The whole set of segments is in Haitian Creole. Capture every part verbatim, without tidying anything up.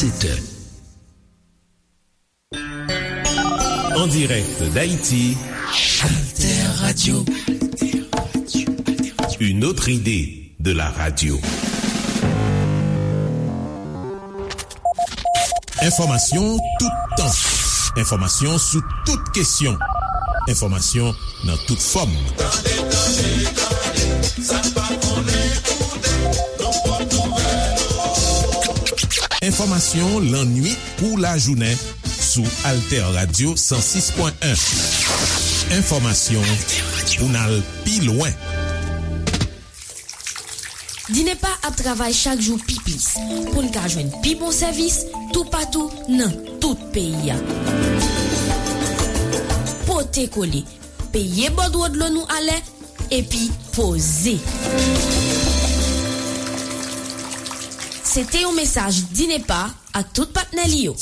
sept heures. En direct d'Haïti, Alter Radio. Une autre idée de la radio. Enfòmasyon toutan. Enfòmasyon sou tout kesyon. Enfòmasyon nan tout fòm. Tande, tande, tande, sa n pa konnen koute, nan pòt nouvèl. Enfòmasyon lannwit kou lajounen sou Alter Radio san sis pwen en. Enfòmasyon pou n al pi lwen. Dinepa ap travay chak jou pi plis pou n ka jwenn pi bon sèvis toupatou nan tout peyi a. Pote kole, peye bòdwo dlo nou alè, epi poze. Se te yon mesaj Dinepa ak tout patnè li yo.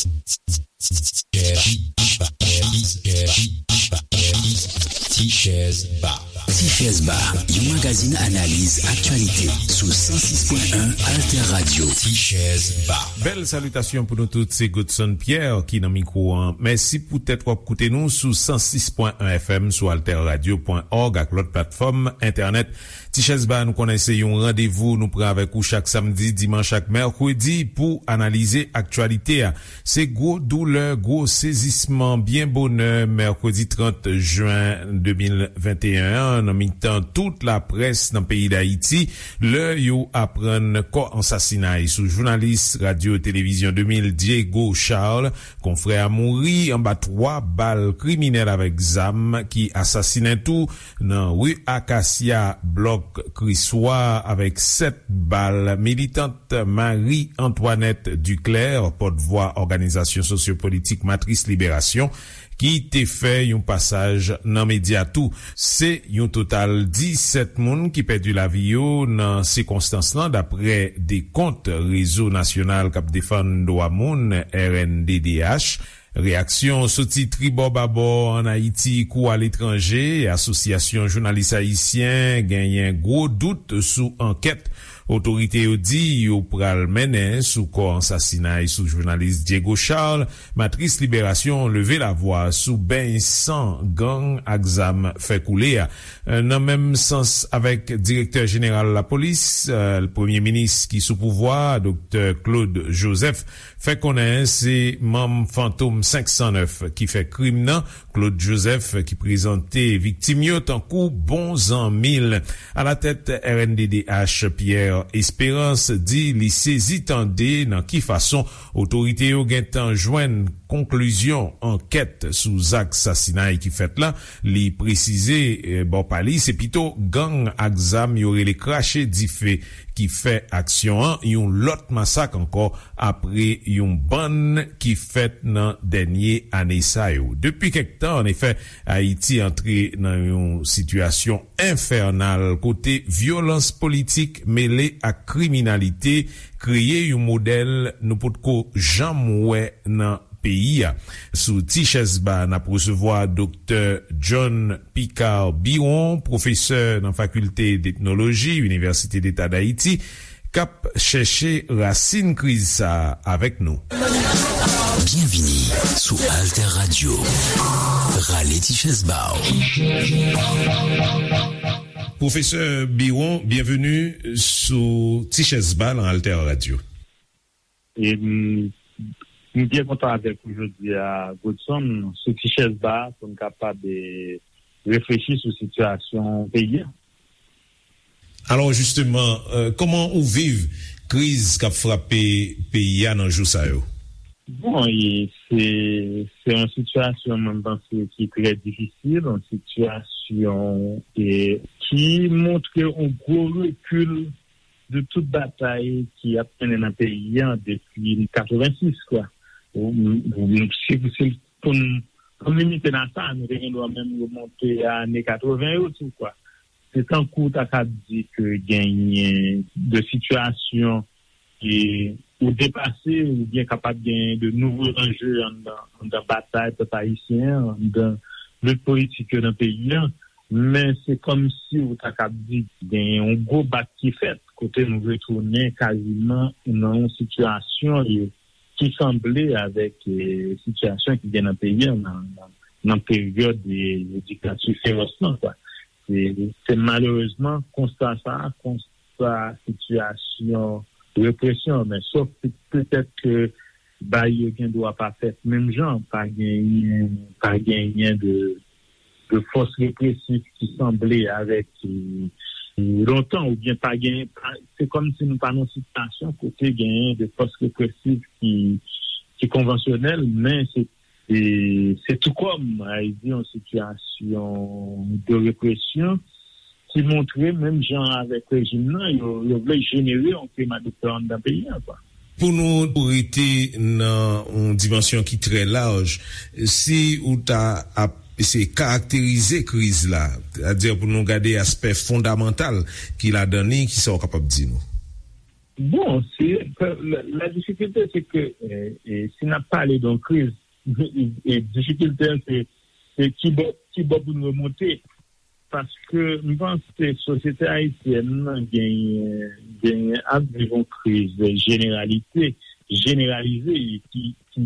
Tichèz Ba. Tichèz Ba, yon magazin analiz aktyalite sou san sis pwen en Alter Radio. Tichèz Ba. Bèl salitasyon pou nou tout, se Godson Pierre ki nan mikwo an. Mèsi poutèt w ap koute nou sou san sis pwen en F M, sou alter radio pwen org ak lòt platfòm entènèt. Tichèz Ba, nou konnen se yon randevou nou pran avèk ou chak samdi, dimanch ak mèkredi pou analize aktyalite a. Se gwo doulè, gwo sezisman byen bonè mèkredi trant jen de mil venteyen an nan mitan tout laprès nan peyi Dayiti, lè yo aprann kò ansasinay sou jounalis radyo televizyon de mil Diego Charles, konfrè a mouri anba twa bal kriminèl avèk zam ki asasinen tou nan ri Akasya, blòk Kriswa, avèk sèt bal militant Marie Antoinette Duclair, pòtvwa òganizasyon sosyopolitik Matris Liberasyon, ki te fè yon pasaj nan medya tou. Se yon total disèt moun ki pèdi lavi yo nan sikonstans lan, dapre dekont Rezo Nasyonal k ap Defann Dwa Moun, R N D D H. Reyaksyon soti tribò babò ann Ayiti kou aletranje. Asosyasyon Jounalis Ayisyen genyen gwo dout sou ankèt otorite yo di yo pral mennen sou kò ansasinay sou jounalis Diego Charles. Matris Liberasyon leve lavwa sou beny san gang ak zam fè koule a. Nan menm sans avèk direktè jeneral lapolis, premye minis ki sou pouvwa a, Doktè Claude Joseph, fè konnen se manm Fantom senk san nèf ki fè krim nan. Claude Joseph, ki prezante viktim yo tankou bon zanmi l. Alatèt R N D D H, Pierre Espérance di li sezi tande nan ki fason otorite yo gentan jwenn konklizyon ankèt sou zak sasinay ki fèt la. Li presize, eh, bò pa li, se pito gang ak zam yo rele krache dife ki fè aksyon an, yon lòt masak ankò apre yon bann ki fèt nan dènye ane sa yo. Depi kèk tan, anefè, Ayiti antre nan yon sitiyasyon enfènal kote vyolans politik mele ak kriminalite kreye yon modèl nou potko janm wè nan peyi a. Sou Tichèz Ba, n ap resevwa Doktè John Picard Biron, pwofesè nan Fakilte d'Etnoloji, Inivèsite Deta Dayiti, k ap chèche rasin kriz sa a avèk nou. Byenvini sou Alter Radio. Rale Tichèz Ba w. Pwofesè Biron, byenveni sou Tichèz Ba nan Alter Radio. E m, m byen kontan avèk ou jodi a, Godson, sou Tichèz Ba, pou n kapab, e, reflechi sou sitiyasyon peyi a. Alò, jisteman, e, kòman ou viv kriz k ap frape peyi a nan jou sa yo? Bon, e, se, se yon sitiyasyon, mwen, m panse, ki trè difisil, yon sitiyasyon, e, ki montre yon gwo rekil de tout batay ki ap mennen nan peyi a depi katrevensis, kwa. Ou, ou, si, si pou n, pou n limite nan sa, nou te gen dwa menm remonte a ane katreven yo tou, kwa. Se tankou w ta ka di ke genyen de sitiyasyon ke ou depase, oubyen kapab genyen de nouvo anje anndan, anndan batay pèp ayisyen an, anndan lit politik yo nan peyi a. Men se kòmsi ou ta kab di genyen yon gwo bak ki fèt, kote nou retounen kaziman nan yon sitiyasyon e ki sanble avèk eh, sitiyasyon ki gen nan peyi an nan, nan, nan peryòd eh, diktatè fewòs lan. Kwa. Se, se malerezman konsta sa, konsta sitiyasyon represyon, men sòf petèt ke bay yo gen dwa pa fèt menm jan, pa genyen, pa genyen de, de fòs represif ki sanble avèk eh, lontan, oubyen pa genyen, pa- se kòm si nou pa nan sitiyasyon kote genyen de fòs represif ki, ki konvansyonèl, men se, se, se tou kòm, a di, yon sitiyasyon de represyon ki montre, menm jan avèk rejim nan, yo, yo vle jenere yon klima de pè anndan peyi an, kwa. Pou nou rete nan yon dimansyon ki trè laj, si ou ta ap eseye karakterize kriz la, sètadi pou nou gade aspè fondamantal ki ladan li, kisa w kapab di nou? Bon, se, la, la difikilte, se ke eh, eh, si n ap pale de yon kriz, eh, difikilte an, se, se ki bò, ki bò pou n remonte. Paske m panse sosyete ayisyèn nan genyen, genyen ap viv yon kriz jeneralite, jeneralize e ki, ki,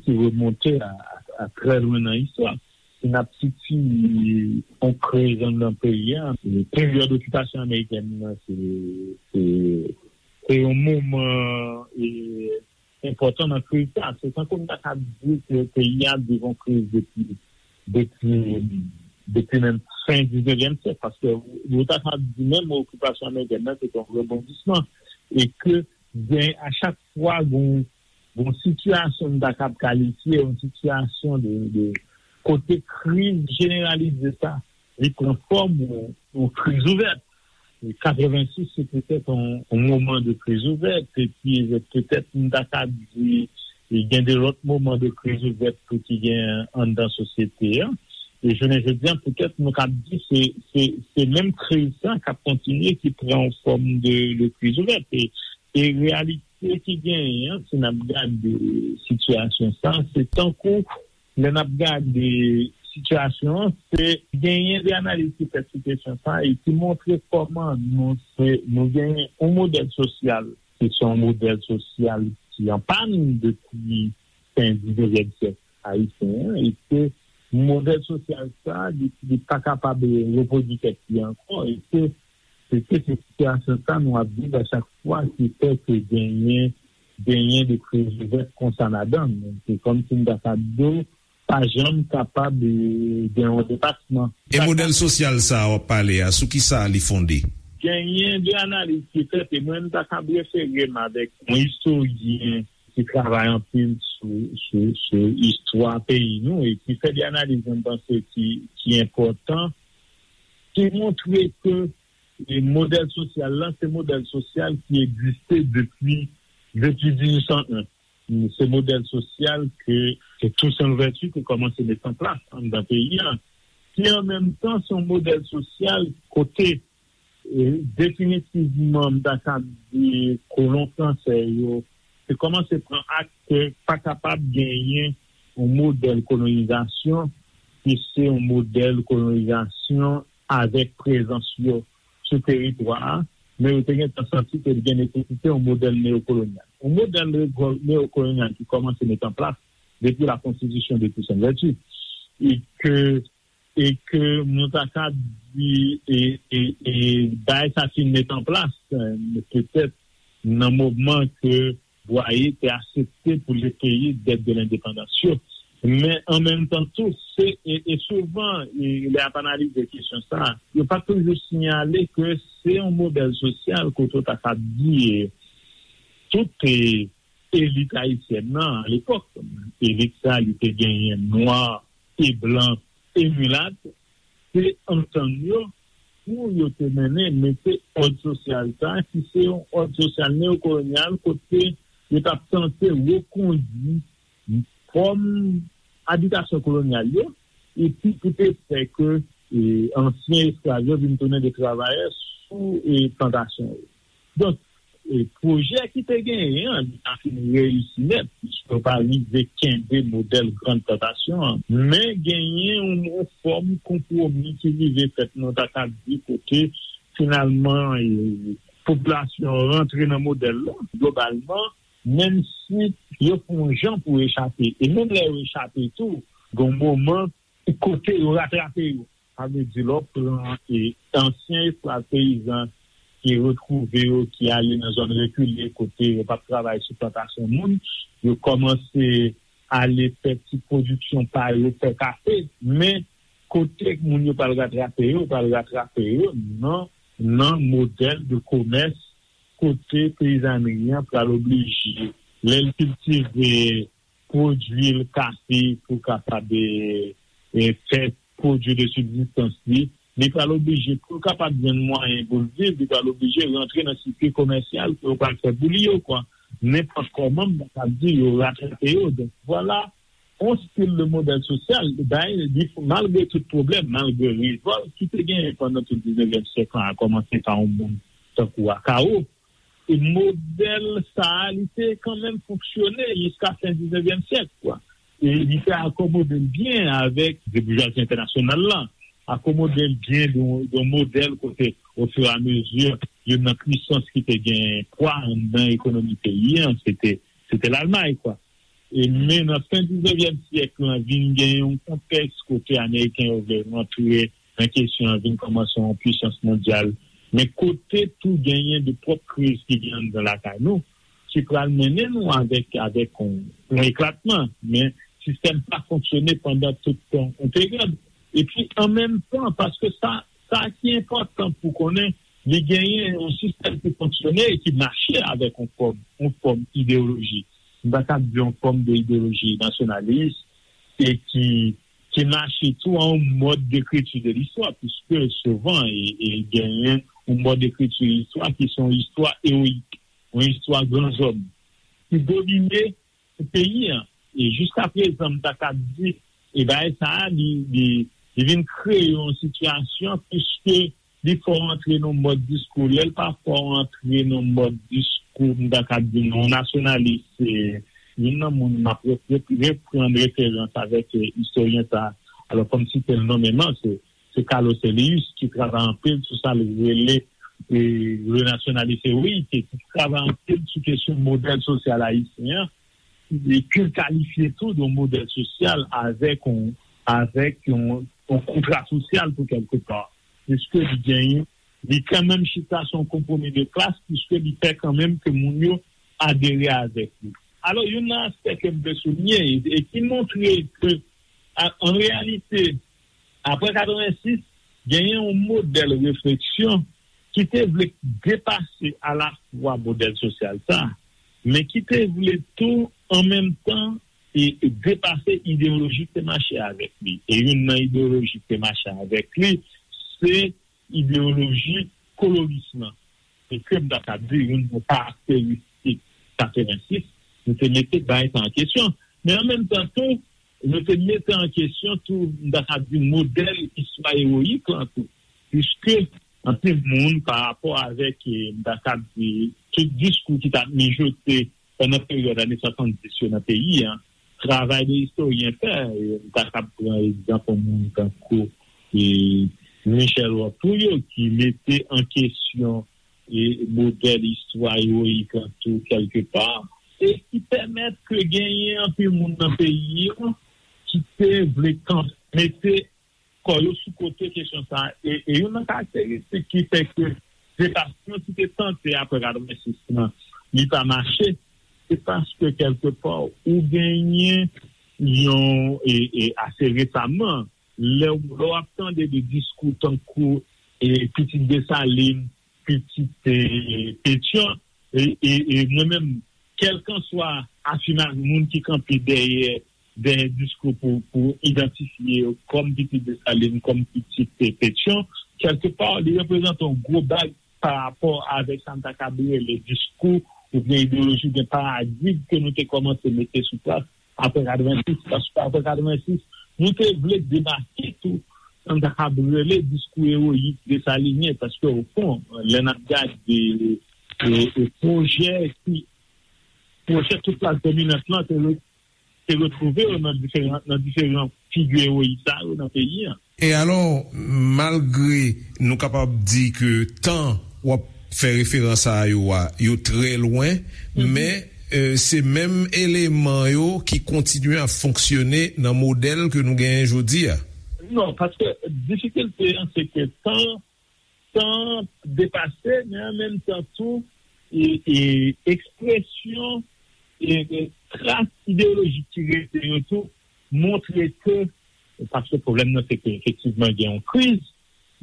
ki remonte a, a, a trè lwen nan istwa. Si n ap sitiye yon kriz anndan peyi a, peryòd okipasyon amerikèn nan, se, se, se yon moman e, enpòtan nan kriz sa. Se tankou m ta ka di ke peyi a ap viv yon kriz depi, depi, depi menm fen diznevyèm syèk, paske ou ta ka di menm okipasyon amerikèn nan se te yon rebondisman, e ke gen, a chak fwa gen yon, gen yon sitiyasyon m ta kab kalifye yon sitiyasyon de, de kote kriz jeneralize sa, li pran fòm yon, yon kriz ouvèt. Katrevensis se petèt yon, yon moman de kriz ouvèt, epi petèt m ta ka di gen de lòt moman de kriz ouvèt tou ki gen anndan sosyete an. E jounen jodi a, petèt nou ka di se, se, se menm kriz sa k ap kontinye ki pran yon fòm de, de kriz ouvèt. E, e reyalite ki genyen an, si n ap gade sitiyasyon sa, se tankou lè n ap gade sitiyasyon an, se genyen de analiz ki fèt sou kesyon sa e ki montre kòman nou se, nou genyen yon modèl sosyal ki se yon modèl sosyal ki an pàn depi fen diznevyèm syèk ayisyen an, e ke modèl sosyal sa, li, li pa kapab repwodui tèt li ankò, e ke, e ke se sitiyasyon sa nou ap viv a chak fwa ki fè ke genyen, genyen de kriz ouvèt konsa ladan l. Se kòm si m ta ka di w, pa janm kapab eh, gen yon depasman. E modèl sosyal sa a w ap pale a, sou ki sa li fonde? Genyen de analiz ki fèt, e mwen, m ta kab refere m avèk yon istoryen ki travay anpil sou, sou, sou istwa peyi nou e ki fè de analiz, mwen panse, ki, ki enpòtan, ki montre ke eh, modèl sosyal la, se modèl sosyal ki egziste depi, depi dizuit san en. Se modèl sosyal ke, ke Toussaint Louverture te kòmanse met an plas anndan peyi a, ki an menm tan se yon modèl sosyal kote, eh, definitivman, m ta kab di, kolon fransè yo te kòmanse pran ak ke pa kapab genyen yon modèl kolonizasyon ki se yon modèl kolonizasyon avèk prezans yo sou teritwa a, men yo te gentan santi ke li gen nesesite yon modèl neyokolonyal. Yon modèl neyo- neyokolonyal ki kòmanse met an plas depi la konstitisyon de Toussaint Louverture. E ke, e ke nou ta ka di, e, e, e bagay sa fin met an plas, eh, petèt nan moman ke Bwaye te aksepte pou l peye dèt de lendepandans yo. Men an menm tan tou, se, e, e souvan, e, lè y ap analize kesyon sa a, yo pa toujou siyale ke se yon modèl sosyal kote w ta ka di, e, tout, e, elit ayisyèn nan, alepòk, elit sa, li te genyen nwa e blan e milat, te antann yo pou yo te mennen mete òd sosyal sa, ki se yon òd sosyal neyokolonyal, kote yo t ap tante rekondui fòm abitasyon kolonyal yo, epi pou te fè ke, e, ansyen esklav yo vin tounen de travayè sou, e, plantasyon yo. Donk, e, pwojè ki te genyen an, li pa fin reyisi nèt, piske yo pa rive kenbe modèl Grand Plantation an. Men genyen yon, yon fòm konpwomi ki rive fèt, nou ta ka di, kote finalman, e, popilasyon an rantre nan modèl la. Globalman, menm si yo fè yon jan pou yo echape. E menm lè yo echape tou, gen yon moman kote yo ratrape yo. Sa vle di, lè w pran e, ansyen esklav peyizan ki retwouve yo, ki ale nan zòn rekile kote yo p ap travay sou plantasyon moun, yo kòmanse ale fè ti pwodiksyon pa yo, fè kafe, men kote moun yo pral ratrape yo, pral ratrape yo nan, nan modèl de komès kote peyizanri an pral oblije, lè l kiltive pwodui l kafe pou kapab e, e, fè pwodui de sibzistans li, li pral oblije pou l kapab jwenn mwayen pou l viv, li pral oblije rantre nan sirkui komèsyal ke yo pral fè pou li yo, kwa. Nenpòt kòman, m ta di, yo ratrape yo. Donk, vwala, yon stil de modèl sosyal, bay, li, malgre tout pwoblèm, malgre revòlt ki te genyen pandan tout diznevyèm syèk lan, a kòmanse pa yon moun tankou Akao, e modèl sa a, li te kanmenm fonksyone jiska fen diznevyèm syèk, kwa. E li te akomode l byen avèk de boujwazi entènasyonal lan, akomode l byen de, de modèl kote, ofiramezi, youn nan pwisans ki te gen pwa anndan ekonomi peyi an, se te, se te Lalmay, kwa. E men nan fen diznevyèm syèk lan, vin gen yon kontèks kote Ameriken yo vle rantre nan kesyon an, vin kòmanse yon pwisans mondyal. Men kote tou genyen de pwòp kriz ki gen anndan lakay nou, ki pral mennen nou avèk, avèk yon, yon eklatman. Men sistèm pa fonksyone pandan tout tan yon peryòd. Epi, an menm tan, paske sa, sa ki enpòtan pou konnen, li genyen yon sistèm ki fonksyone e ki mache avèk yon fòm, yon fòm ideyoloji. M pa t ap di yon fòm de ideyoloji nasyonalis e ki, ki mache tou a yon mòd dekriti de listwa, piske souvan e, e genyen yon mòd dekriti de listwa ki se yon istwa ewoyik, yon istwa gran zòm, ki domine pou peyi an. E jiska prezan, m ta ka di, e bagay sa a, li, li, li vin kreye yon sitiyasyon, piske li fè w antre nan yon mòd diskou. Lè l pa fè w antre nan yon mòd diskou, m ta ka di, non, nasyonalis, se youn nan moun m ap re-, re-, reprann referans avèk, eh, istoryen sa a. Alò, fò m site l nonmenman, se, se Carlos Elius, ki travay anpil sou sa l rele, eh, le nationalisme héroïque, e ki travay anpil sou kesyon modèl sosyal ayisyen an, e ke l kalifye tou de yon modèl sosyal avèk yon, avèk yon, yon kontra sosyal tou kèlkepa. Piske li genyen, li kanmenm chita sou yon konpwomi de klas, piske li fè kanmenm ke moun yo adere avèk li. Alò, youn nan aspè ke m vle souliye, e, e ki montre ke, a, an reyalite, apre katrevensis, genyen yon modèl refleksyon ki te vle depase alafwa modèl sosyal sa a, men ki te vle tou, an menm tan, e, e depase ideyoloji ki te mache avèk li. E youn nan ideyoloji ki te mache avèk li, se ideyoloji kolonis lan. E ke m ta ka di, youn nan karakteristik katrevensis, nou te mete bagay sa an kesyon. Men an menm tan tou, nou te mete an kesyon tou, m ta ka di, modèl istwa ewoyik lan tou. Piske anpil moun, pa rapò avèk, eh, m ta ka di, tout diskou ki t ap mijote pandan peryòd ane swasanndis yo nan peyi an, travay de istoryen fè, eh, m ta ka pran egzanp yon moun tankou, eh, Michel Roth Trouillot, ki mete an kesyon, eh, modèl istwa ewoyik lan tou kèlkepa, e ki pèmèt ke genyen anpil moun nan peyi an ki te vle kan-, mete kò yo sou kote kesyon sa a. E, e youn nan karakteristik ki fè ke depasman ki te tante apre katrevensis lan, li pa mache, se paske kèlkepa ou genyen yon, e, e ase resaman, lè w, lè w ap tande de diskou tankou, e, pitit Desalin, pitit, e, Petyon, e, e, e mwen menm, kèlkanswa afimaj moun ki kanpe dèyè, dèyè diskou pou, pou idantifye yo kòm pitit Desalin, kòm pitit, e, Petyon, kèlkepa, li reprezante yon gwo bag pa rapò avèk sa m ta kab rele diskou oubyen ideyoloji oubyen paradig ke nou te kòmanse mete sou plas apre katrevensis, paske apre katrevensis, nou te vle debake tou sa n ta kab rele diskou ewoyik desalinyen, paske, o fon, lè n ap gade, e, e, pwojè ki, pwojè tout klas dominant lan te re-, te retwouve yo nan diferan, nan diferan figi ewoyik sa yo nan peyi an. E alò, malgre nou kapab di ke tan w ap fè referans a yo a, yo trè lwen, men eh, se menm eleman yo ki kontinye ap fonksyone nan modèl ke nou genyen jodi a? Non, paske difikilte an, se ke tan, tan depase, men an menm tan tou, e, e ekspresyon, e, e tras ideyolojik ki rete yo tou, montre ke, paske pwoblèm nan, se ke efektivman gen yon kriz,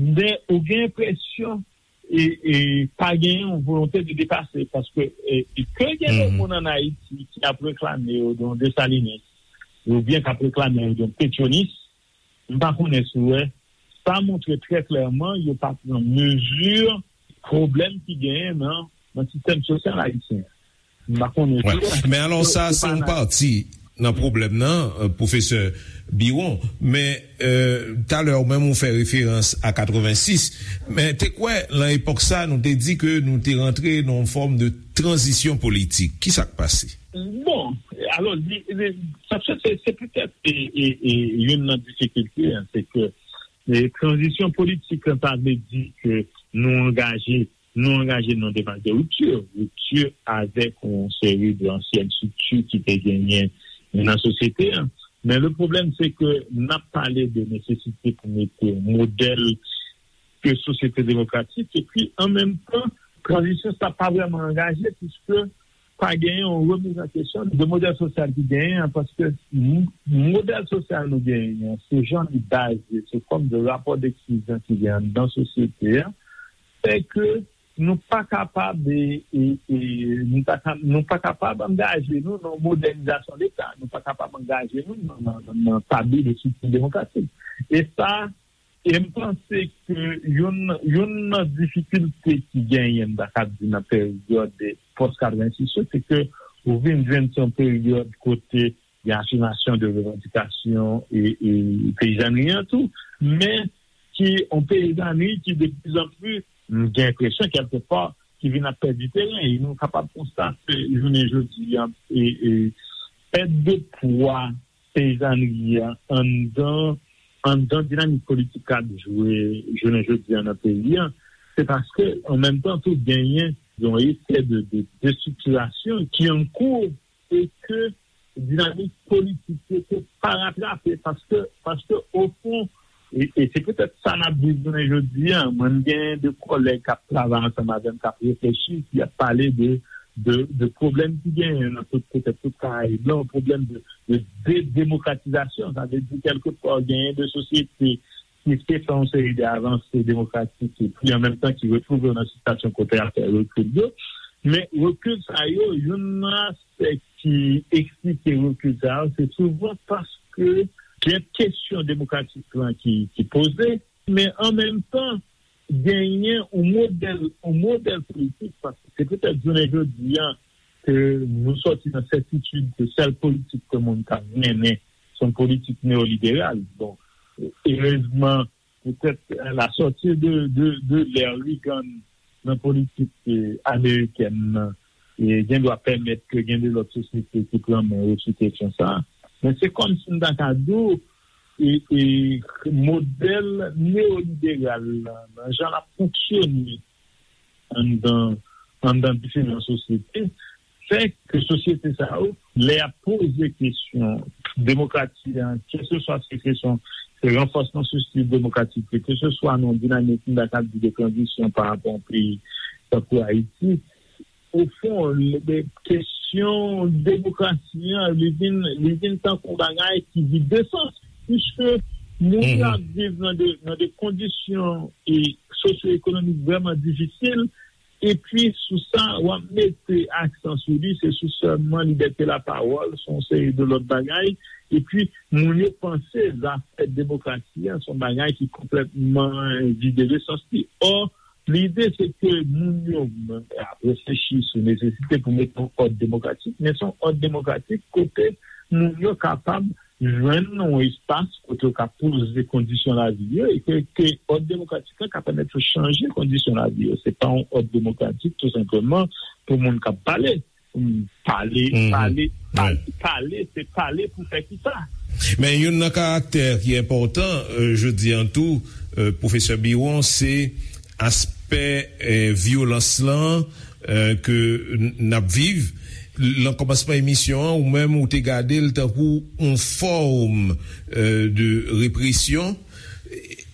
men ou gen enpresyon e, e pa gen yon volonte de depase, paske, e, e ke gen de moun ann Ayiti ki ap reklame yo de yon Desalinis, oubyen k ap reklame yo de yon Petyonis, m pa konnen si w wè, sa montre trè klèman yo pa pran mezi pwoblèm ki genyen nan, nan sistèm sosyal ayisyen. M pa konnen si w wè. Men alò, sa se yon pati nan pwoblèm nan, eh, pwofesè Biwon. Men, eh, talè ou menm ou fè referans a katrevensis. Men te kwè, nan epòk sa, nou te di ke nou te rantre nan yon fòm de tranzisyon politik. Ki sa k pase? Bon, alò, li, li, sa se, se, se petèt, e, e, e, youn nan difikilte an, se ke, e, tranzisyon politik an, sa vle di ke nou angaje, nou angaje nan demach de ripti, ripti avèk yon seri de ansyèn estrikti ki te genyen nan sosyete an. Men le pwoblèm, se ke n ap pale de nesesite pou mete yon modèl de sosyete demokratik, epi an menm tan, tranzisyon sa pa vrèman angaje, piske pa genyen yon remiz an kesyon de modèl sosyal ki genyen an, paske m-, modèl sosyal nou genyen an, se jan li baze, se fòm de rapò de eksklizyon ki genyen anndan sosyete a, fè ke nou pa kapab, e, e, e, nou pa ka, nou pa kapab angaje nou nan modènizasyon Leta, nou pa kapab angaje nou nan, nan, nan, nan tabli de estrikti demokratik. E sa, e m panse ke youn, youn nan difikilte ki genyen, m ta kab di, nan peryòd pòs katrevensis yo, se ke ou vin jwenn se yon peryòd kote gen afimasyon de revandikasyon e, e peyizanri an tou, men ki yon peyizanri ki de pli an pli, m gen enpresyon kèlkepa, ki vin ap pèdi teren. E nou kapab konstate jounen jodi a, e, e, pèt de pwa peyizanri an anndan, anndan dinamik politik k ap jwe jounen jodi a nan peyi a, se paske an menm tan tou genyen yon efè de, de destriktirasyon ki an kou e ke dinamik politik yo te pa ratrape, paske, paske ofon, e, e se petèt sa n ap viv jounen jodi a. Mwen, m gen de kòlèg k ap travay ansanm avè m, k ap reflechi, ki ap pale de, de, de pwoblèm ki genyen nan tout, petèt tout Karayib la, yon pwoblèm de, de, de demokratizasyon. Sa vle di, kèlkepè, genyen de sosyete ki te fè yon seri de avanse demokratik, epi an menm tan ki retwouve yo nan sitiyasyon kote y ap fè rekil yo. Men rekil sa yo, youn nan aspè ki eksplike rekil sa yo, se souvan paske gen kesyon demokratik lan ki, ki poze, men an menm tan, genyen yon modèl, yon modèl politik, paske se petèt jounen jodi a ke nou sòti nan sètitid ke sèl politik ke moun ka mennen, se yon politik neyoliberal. Bon, erezman, petèt, la sortie de, de, de l'ère Reagan nan politik, eh, amerikèn nan, eh, gendwa pèmèt ke gen de lòt sosyete ki pran men yo sou kesyon sa a. Men se kòmsi m ta ka di w, e, e modèl neyoliberal la, nan jan l ap fonksyone anndan, anndan diferan sosyete, fè ke sosyete sa yo, lè y ap poze kesyon demokrasi a, keseswa se kesyon, se ranfòsman sosyete demokratik, keseswa nan dinamik, m ta ka di, de tranzisyon pa rapò a yon peyi tankou Ayiti, ofon, le, le, kesyon demokrasi an, li vin, li vin tankou yon bagay ki vide sans, piske moun yo ap viv nan de, nan de kondisyon e sosyo-ekonomik vrèman difisil, epi sou sa, w ap mete aksan sou li, se sou sèlman libète lapawòl, se yon seri de lòt bagay, epi moun yo panse zafè demokrasi a, se yon bagay ki konplètman vide de sans li. Ò, lide se ke moun yo ap reflechi sou nesesite pou mete yon òd demokratik, men se yon òd demokratik kote moun yo kapab jwenn yon espas kote yo ka poze kondisyon lavi yo, e ke, ke òd demokratik la ka pèmèt yo chanje kondisyon lavi yo. Se pa yon òd demokratik, tou senpleman, pou moun k ap pale. Pale, pale, pale, pale, se pale pou fè kisa? Men youn nan karaktè ki enpòtan, eh, jodi an tou, eh, pwofesè Biwon, se aspè, eh, vyolans lan, eh, ke n-, n ap viv. Lan kòmansman emisyon an, ou menm ou te gade l tankou yon fòm, euh, de represyon.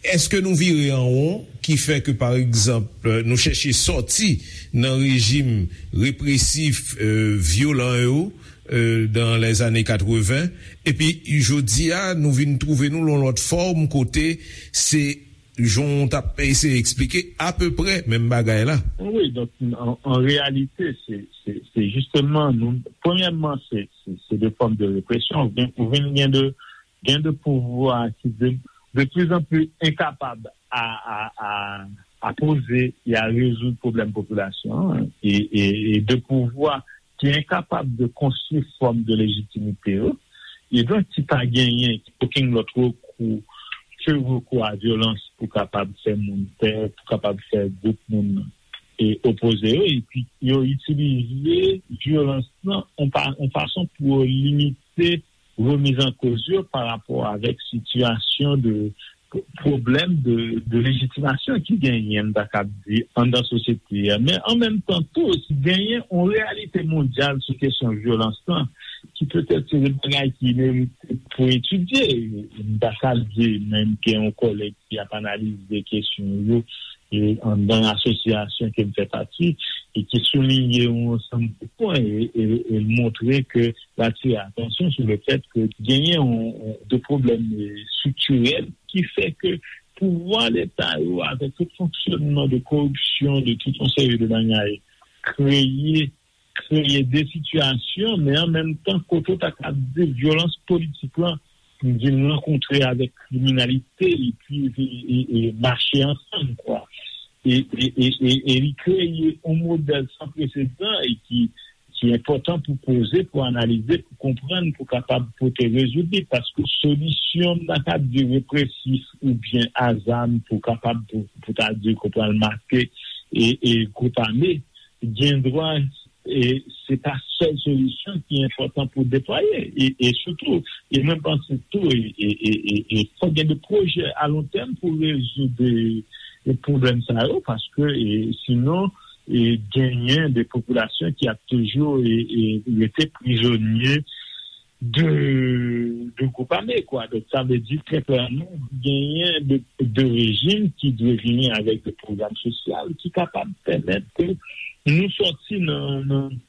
Èske nou vire an won ki fè ke, pa egzanp, nou chèche sòti nan rejim represif, euh, vyolan yo, euh, dans les années quatre-vingts, epi jodi a, nou vin twouve nou lan lòt fòm kote se, jan w t ap eseye eksplike, apeprè menm bagay la. Wi, donk, an, an reyalite, se, se, se jisteman, nou, premyèman, se, se, se de fòm de represyon. Ou vin, ou vin gen de, gen de pouvwa ki de, de plus en plus enkapab a, a, a, a poze e a rezoud pwoblèm popilasyon an, e, e, e de pouvwa ki enkapab de konstwi fòm de lejitimite yo, e donk ki pa genyen okenn lòt rekou ke rekou a vyolans pou kapab fè moun pè, pou kapab fè gwoup moun e opoze yo, epi yo itilize vyolans lan yon pa, yon fason pou yo limite remiz an koz yo pa rapò avèk sitiyasyon de pwoblèm de, de lejitimasyon ki genyen, m ta kab di, anndan sosyete a. Men an menm tan tou, genyen yon reyalite mondyal sou kesyon vyolans lan, ki petèt se de bagay ki merite pou etidye. M ta kab di, menm gen yon kòlèg ki ap analize kesyon yo, e anndan asosyasyon ke m fè pati, e ki souliye yon ansanm de pwen e, e, e montre ke l atire atansyon sou le fèt ke genyen yon, yon, de pwoblèm, e, estriktirèl ki fè ke pouvwa Leta yo, avèk tout fonksyonman de koripsyon, de tout yon seri de bagay, kreye, kreye de sitiyasyon, men an menm tan, kote w ta ka di vyolans politik lan vin rankontre avèk kriminalite, epi e, e, e mache ansanm, kwa. E, e, e, e, e li kreye yon modèl san presedan e ki, ki enpòtan pou poze, pou analize, pou konprann, pou kapab pote rezoud li, paske solisyon, m ta ka di, represif oubyen a zam pou kapab, pou, pou ta di, pou pral make e, e gwoup ame, gendwa e se pa sèl solisyon ki enpòtan pou deplwaye. E, e sitou, e mwen panse tou, e, e, e, e, e fòk gen de pwojè a lon tèm pou rezoud e, e pwoblèm sa yo, paske e, sinon, e genyen de popilasyon ki ap toujou e, e rete prizonye de, de gwoup ame, kwa. Donk, sa vle di, trè klèman, genyen de, de rejim ki dwe vini avèk de pwogram sosyal ki kapab pèmèt ke nou sòti nan, nan,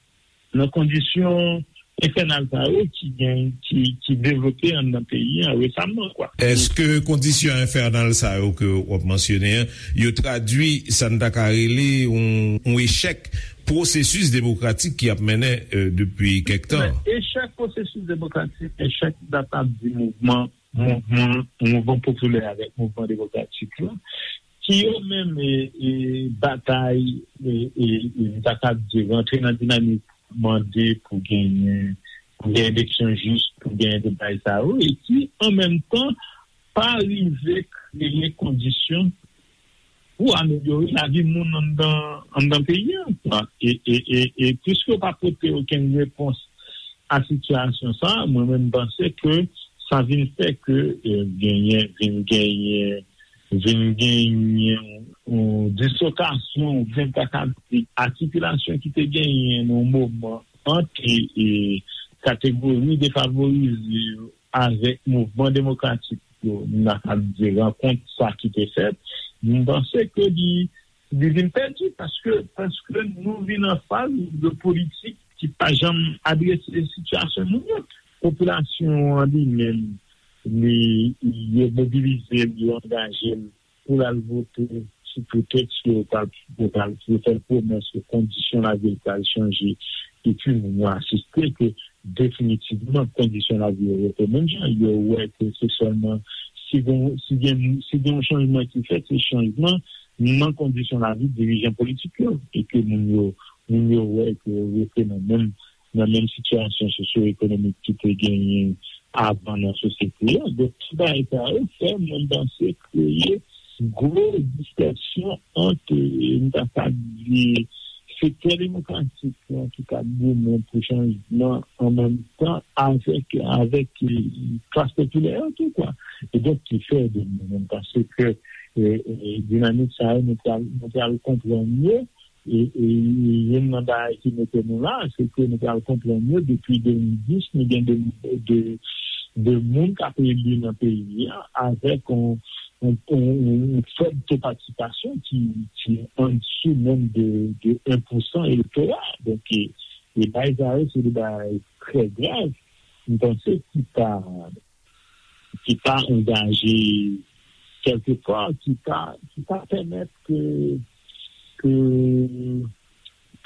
nan kondisyon enfènal sa yo ki gen, ki, ki devlope anndan peyi an resaman, kwa. Èske kondisyon enfènal sa yo ke w ap mansyone an, yo tradwi sa n ta ka rele yon, yon echèk pwosesis demokratik ki ap mennen, euh, depi kèk tan? Men, echèk pwosesis demokratik, echèk, m ta ka di, mouvman, mouvman, mouvman popilè avèk mouvman demokratik la, ki yo menm, e, e, batay, e, e, e, m ta ka di, rantre nan dinamik mande pou genyen, pou gen eleksyon jis, pou gen de bagay sa yo, e ki, an menm tan, pa rive kreye kondisyon pou amelyore lavi moun anndan, anndan peyi a, kwa. E, e, e, e piske yo pa pote okenn repons a sitiyasyon sa a, mwen menm, m panse ke sa vin fè ke, e, genyen, vin genyen, vin genyen yon dislokasyon, oubyen m ta ka di atikilasyon ki te genyen nan yon moman ant, e, e, kategori defavorize yo avèk mouvman demokratik yo, m ta ka di rankont sa ki te fèt, m panse ke li, li vin pèdi paske, paske nou vin an faz de politik ki pa janm adrese sitiyasyon moun yo. Popilasyon an li menm, li, yo mobilize l, yo angaje l pou l al vote sou pretèks ke yo pral, yo pral, yo fè l pwomès ke kondisyon lavi l pral chanje. Epi moun yo asiste ke definitivman kondisyon lavi yo rete menm jan. Yo wè ke se sèlman si gen, si gen, si gen yon chanjman ki fèt, se chanjman nan kondisyon lavi dirijan politik yo. E ke moun yo, moun yo wè ke yo rete nan menm, nan menm sitiyasyon sosyo-ekonomik ki te genyen avan nan sosyete a. Donk, tout bagay sa yo fè mwen panse kreye gwo diskèsyon ant, e, m ta ka di, sektè demokratik lan ki t ap goumen pou chanjman an menm tan avèk, avèk, e, klas popilè an tou, kwa. E donk, ki fè de mwen menm panse ke, e, e, dinamik sa yo, nou pral, nou pral konprann yo, E, e, e youn nan bagay ki mete nou la, se ke nou pral konprann yo depi de mil dis, nou gen de, de, de moun k ap eli nan peyi a, avèk yon, yon, yon, yon fèb to patisipasyon ki, ki andisou menm de, de en pousan elektora. Donk, e, e bagay sa yo, se de bagay trè grav, m panse, ki pa ki pa angaje kèlkepwa, ki pa, ki pa pèmèt ke, ke,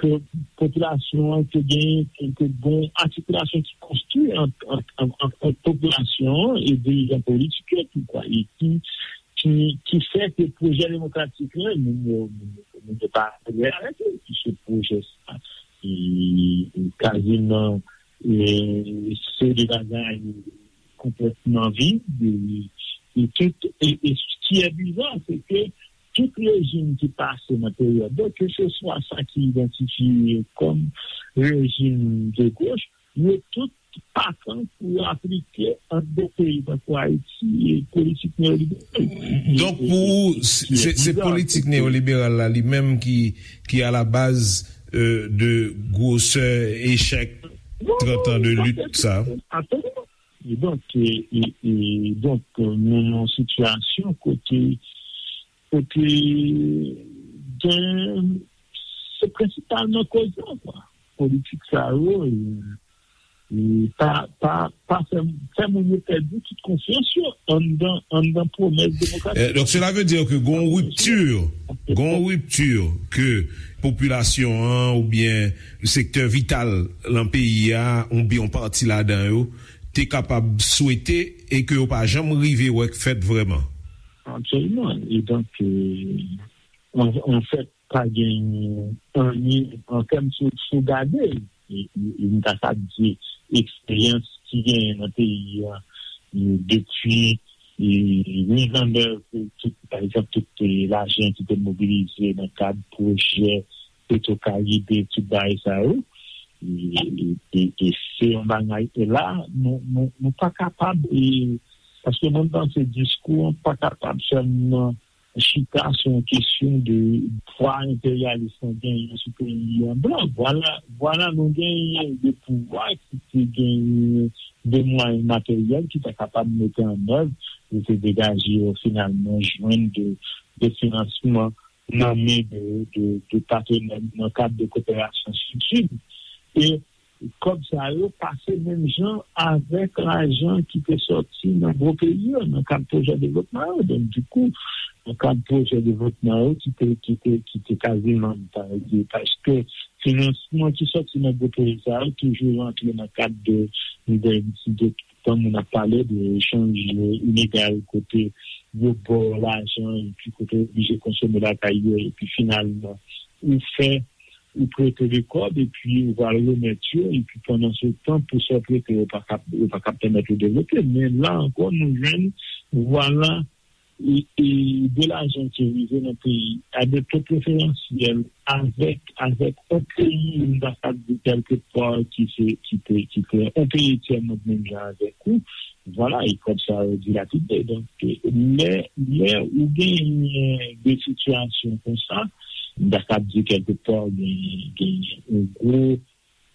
ke popilasyon an te gen, ke, ke gon atikilasyon ki konstwi ant, ant, ant, ant, ant popilasyon an e dirijan politik yo tou, kwa, e ki, ki, ki fè ke pwojè demokratik la, moun yo, moun yo, moun yo pa adere avèk li, puiske pwojè sa, e, e kaziman, e, se de bagay konplètman vid, e, e tout, e, e ce qui est bizarre, c'est que tout rejim ki pase nan peryòd yo, ke se swa sa ki idantifye kòm rejim de goch, yo tout pakan pou yo aplike ant de peyi tankou Ayiti e politik neyoliberal. Donk, pou ou, se, se politik neyoliberal la li menm ki, ki a la baz, euh, de gwosè echèk trant an de lit sa? Absoliman. E donk, e, e, e donk, nou nan yon sitiyasyon kote, kote gen, se prensipalman koz la, kwa. Politik sa yo, e, e pa, pa, pa fè, fè moun yo pèdi tout konfyans yo anndan, anndan pwomès demokratik. Euh, donc, cela veut dire que gon ripti, gon ripti ke popilasyon an oubyen sektè vital lan peyi a, oubyen yon pati ladan yo, te kapab swete e ke yo pa janm rive wè k fèt vrèman. Absoliman. E donk, euh, an, an fèt, pa gen anyen an tèm sou, sou gade, e, e, e m ta kab di eksperyans ki genyen nan peyi a, e, depi, e, mizannèv, e, tout, pa egzanp, tout, e, lajan ki te mobilize nan kad pwojè Petro Caribe, tout bagay sa yo. E, e, e, e se yon bagay, e la, nou, nou, nou pa kapab, e, paske mwen panse diskou an pa kapab sèlman chita sou yon kesyon de pwa enperyalis lan genyen sou peyi an blan. Vwala, vwala nou genyen de pouvwa ki te genyen de mwayen materyèl ki ta kapab mete an èv pou te degaje yo finalman jwenn de, de finansman nan men de, de, de patenè nan kad de koperasyon Sid-Sid. E kòb sa yo pase menm jan avèk lajan ki te sòti nan gwo peyi yo, nan kad pwojè devlopman yo. Donk, dikou, nan kad pwojè devlopman yo ki te, ki te, ki te kaziman, pa egzanp, paske finansman ki sòti nan gwo pwojè sa yo toujou rantre nan kad de, de, de, tan moun ap pale de echanj inegal kote yo ba w lajan epi kote w oblije konsome lakay yo, epi finalman, ou fè ou prete li kòb, epi ou pral remèt yo, epi pandan se tan, pou sa w prete, yo pa kab, yo pa kab pèmèt ou devlope. Men la ankò, nou jwenn, vwala, e, e de lajan ki rive nan peyi a de to preferansyèl avèk, avèk yon peyi, m ta kab di kèlkepwa ki se, ki te, ki te yon peyi tyè mond menm jan avèk ou, vwala, e kòb sa yo dilapide. Donk, lè, lè ou genyen de sitiyasyon konsa, m ta kab di kèlkepwa gen, gen yon gwo,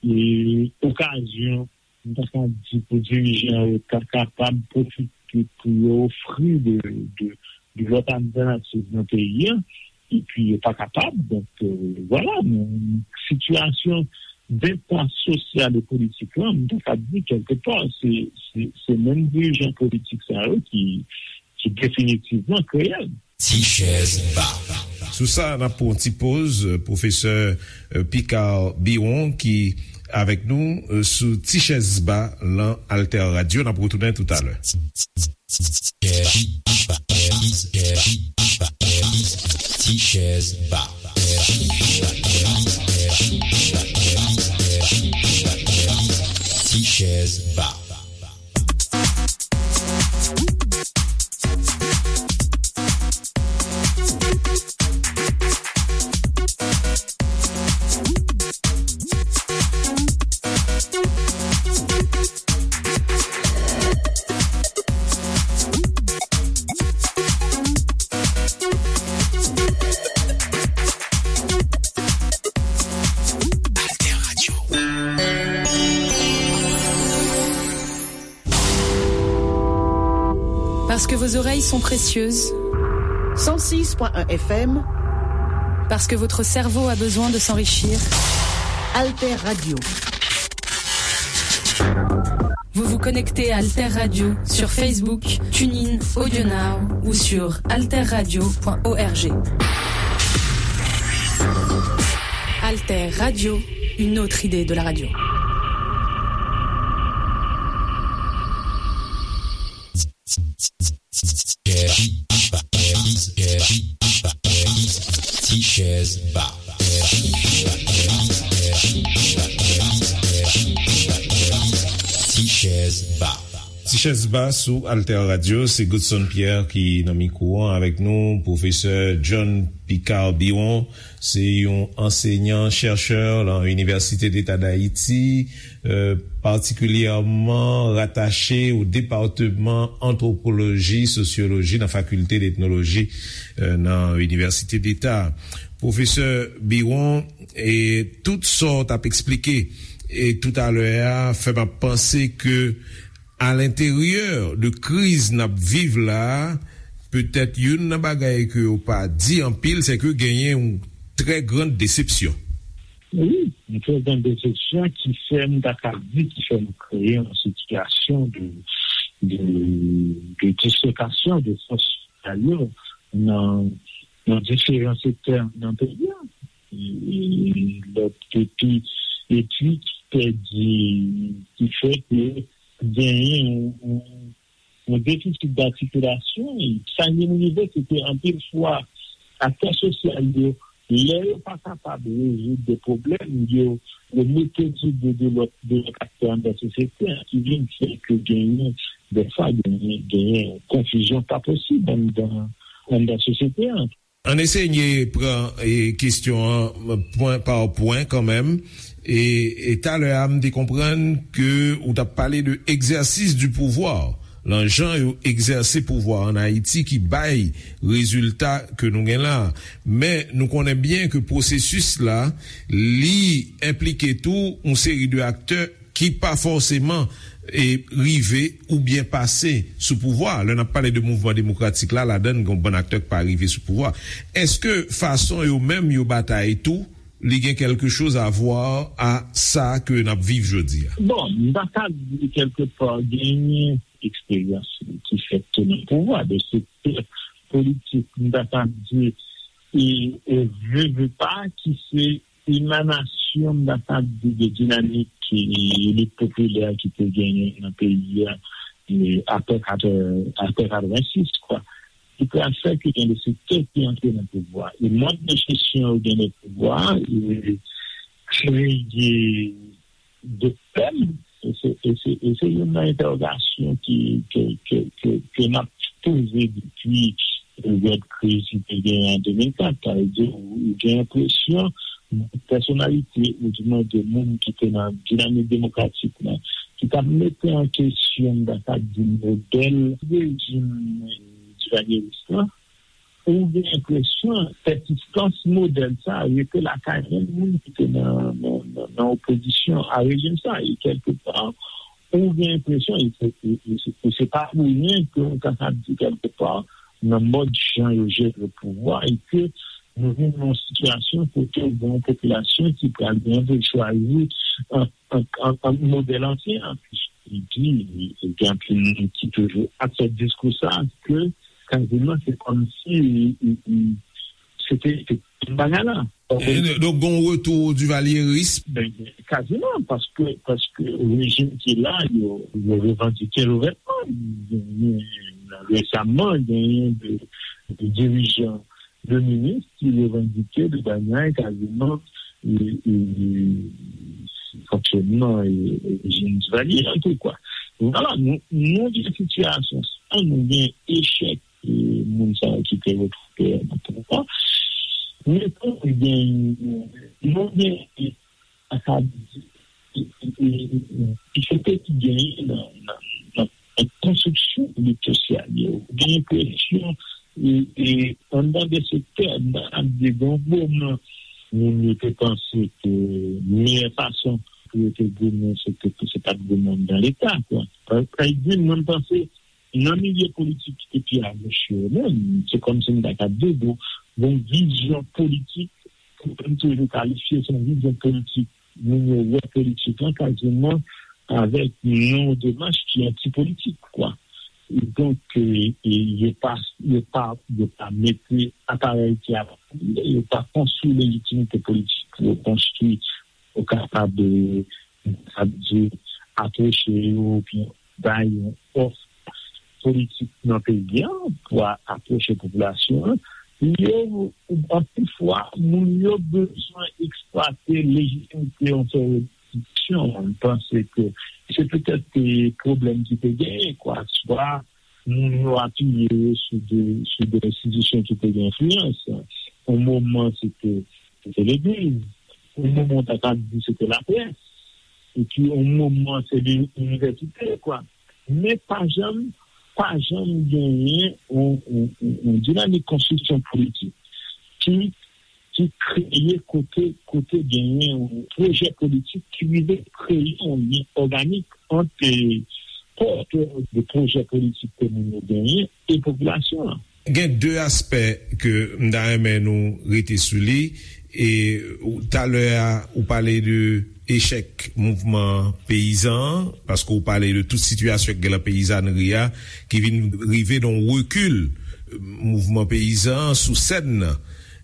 e, okazyon, m ta kab di, pou dirijan yo ta kapab pwofite pou yo ofri de, de, de lòt altènativ nan peyi a, epi yo pa kapab. Donk, euh, vwala, nou, sitiyasyon denpas sosyal e politik lan, m ta kab di, kèlkepwa, se, se, se menm dirijan politik sa yo ki, ki definitivman kreye l. Ti chèz ba. Sou sa, n ap pran yon ti poz, euh, pwofesè, euh, Picard Biron ki avèk nou, euh, sou Ti chèz ba lan Alter Radio. N ap retounen toutalè. Ti chèz ba. Ti chèz ba. Parce que vos oreilles sont précieuses. Cent six point un F M. Parce que votre cerveau a besoin de s'enrichir. Alter Radio. Vous vous connectez à Alter Radio sur Facebook, TuneIn, AudioNow ou sur alterradio point org. Alter Radio, une autre idée de la radio. Ti chèz ba. Ti chèz ba. Ti chèz ba sou Alter Radio, se Godson Pierre ki nan mikwo an avèk nou, pwofesè John Picard Biron, se yon ansenyan, chèchè nan Université d'État d'Haïti, euh, patikilyèman ratache o depatman antwopoloji, sosyoloji nan Fakilte d'Etnoloji, euh, nan Université d'État. Pwofesè Biron, e tout sa w t ap eksplike, e toutalè a, fè m ap panse ke alenteryè de kriz n ap viv la a, petèt youn nan bagay ke yo pa di anpil, se ke genyen yon trè grann desepsyon. Wi, yon trè grann desepsyon ki fè m ta ka di, ki fè nou kreye yon sitiyasyon de, de, de dislokasyon de fòs sosyal yo nan, nan diferan sektè nan peyi a. E, e, lòt epi, epi ki pèdi, ki fè ke genyen yon, yon, yon defisit d'articulation. E sa ki vin rive, se ke anpil fwa, aktè sosyal yo, lè yo pa kapab rezoud de pwoblèm, yo, yo mete sou do de lòt, de lòt aktè anndan sosyete a, ki vin fè ke genyen, dèfwa, genyen, genyen konfizyon pa posib anndan, anndan sosyete a. Ann eseye pran, e, kesyon an pwen pa pwen kanmenm. E, e talè a, m te konprann ke ou t ap pale de egzèsis di pouvwa, lan jan yo egzèse pouvwa ann Ayiti ki bay rezilta ke nou gen la. Men nou konnen byen ke pwosesis la, li enplike tou yon seri de aktè ki pa fòseman, e, rive oubyen pase sou pouvwa a. Lè n ap pale de mouvman demokratik la, ladan l gen yon bann aktè k pa rive sou pouvwa a. Èske fason yo menm yo batay tou, li gen quelque chose à voir a sa ke n ap viv jodi a? Bon, m ta ka di kèlkepa genyen eksperyans ki fèt tou nan pouvwa, de sektè politik, m ta ka di, e, e ve, ve pa, ki se emanasyon, m ta ka di, de dinamik, e, lit popilè ki te genyen nan peyi a, e, apre katrè, apre katrevensis, kwa. Ki pral fè ke gen de sektè ki antre nan pouvwa. E mòd de jesyon yo gen nan pouvwa, e, kreye de pèm, e se, e se, e se youn nan entèwogasyon ki, ke, ke, ke, ke n ap poze depi peryòd kriz ki te genyen an de mil kat. Sa vle di, ou gen enpresyon pèsonalite, ou di mwen de moun ki te nan dinamik demokratik la, ki t ap mete an kesyon, m ta ka di, modèl rejim divalyeris la, ou gen enpresyon pèsistans modèl sa a rete lakay menm moun ki te nan, nan, nan, nan opozisyon a rejim sa a. E kèlkepa, ou gen enpresyon, e se, e, e se, e se pa pou ryen ke nou kapab di kèlkepa, nan mòd jan yo jere pouvwa, e ke nou vin nan yon sitiyasyon kote ou gen yon popilasyon ki pral gen pou chwazi ant, ant, ant, ant modèl ansyen an. Epi, gen anpil moun ki toujou ap fè diskou sa a, ke kaziman se kòmsi, e, e, e, se te, se te menm bagay la. E, donk, gen yon retou divalyeris. Ben, kaziman, paske, paske rejim ki la, yo, yo revandike l ouvètman. Genyen, resaman, genyen de, de dirijan, de minis ki revandike de bagay kaziman, e, e, fonksyonman, e, rejim divalye an tou, kwa. Vwala, nou, nou gen sitiyasyon sa, nou gen echèk, e, moun sa yo ki te retwouve nan pouvwa. Men tou, nou gen, nou gen, e, sa ka di, e, e, e, difikilte ki genyen nan, nan, nan, nan konstriksyon elit sosyal yo. Ou gen enpresyon, e, e, anndan de sektè, nan ap degrangoman, moun yo te panse ke meyè fason pou yo te goumen, se te, se pa t goumen anndan Leta, kwa. Pa, pa egzanp, mwen, m panse, Nan milye politik ki te pi agoch yo menm, se kòmsi m ta ka di, gon, gon vizyon politik, pou m toujou kalifye se yon vizyon politik, moun yo wè politik lan kaziman avèk yon demach ki antipolitik, kwa. Donk, e, e, yo pa, yo pa, yo pa mete aparèy ki ap, yo pa konstwi lejitimite politik pou yo konstwi, pou kapab, e, sa vle di, apwoche yo, oubyen bay yon òf politik nan peyi a pou a- apwoche popilasyon an, yo, anpil fwa, moun yo bezwen eksplwate lejitimite yon seri eleksyon. M panse ke se petèt, e, pwoblèm ki te genyen, kwa. Swa moun yo apiye yo sou de, sou de enstitisyon ki te gen enfliyans. Yon moman, se te, se te legliz. Yon moman, w ta ka di se te laprès. Epi, yon moman, se li- inivèsite, kwa. Men pa janm, pa janm genyen yon, yon, yon, yon dinamik konstriksyon politik ki, ki kreye kote, kote genyen yon pwojè politik ki rive kreye yon lyen òganik ant, e, pòtè de pwojè politik ke moun yo genyen e popilasyon an. Gen de aspè ke m ta renmen nou rete sou li. E ou- talè a, ou pale de echèk mouvman peyizan an, paske ou pale de tout sitiyasyon k gen nan peyizanri a, ki vin rive nan rekil mouvman peyizan an sou sèn nan.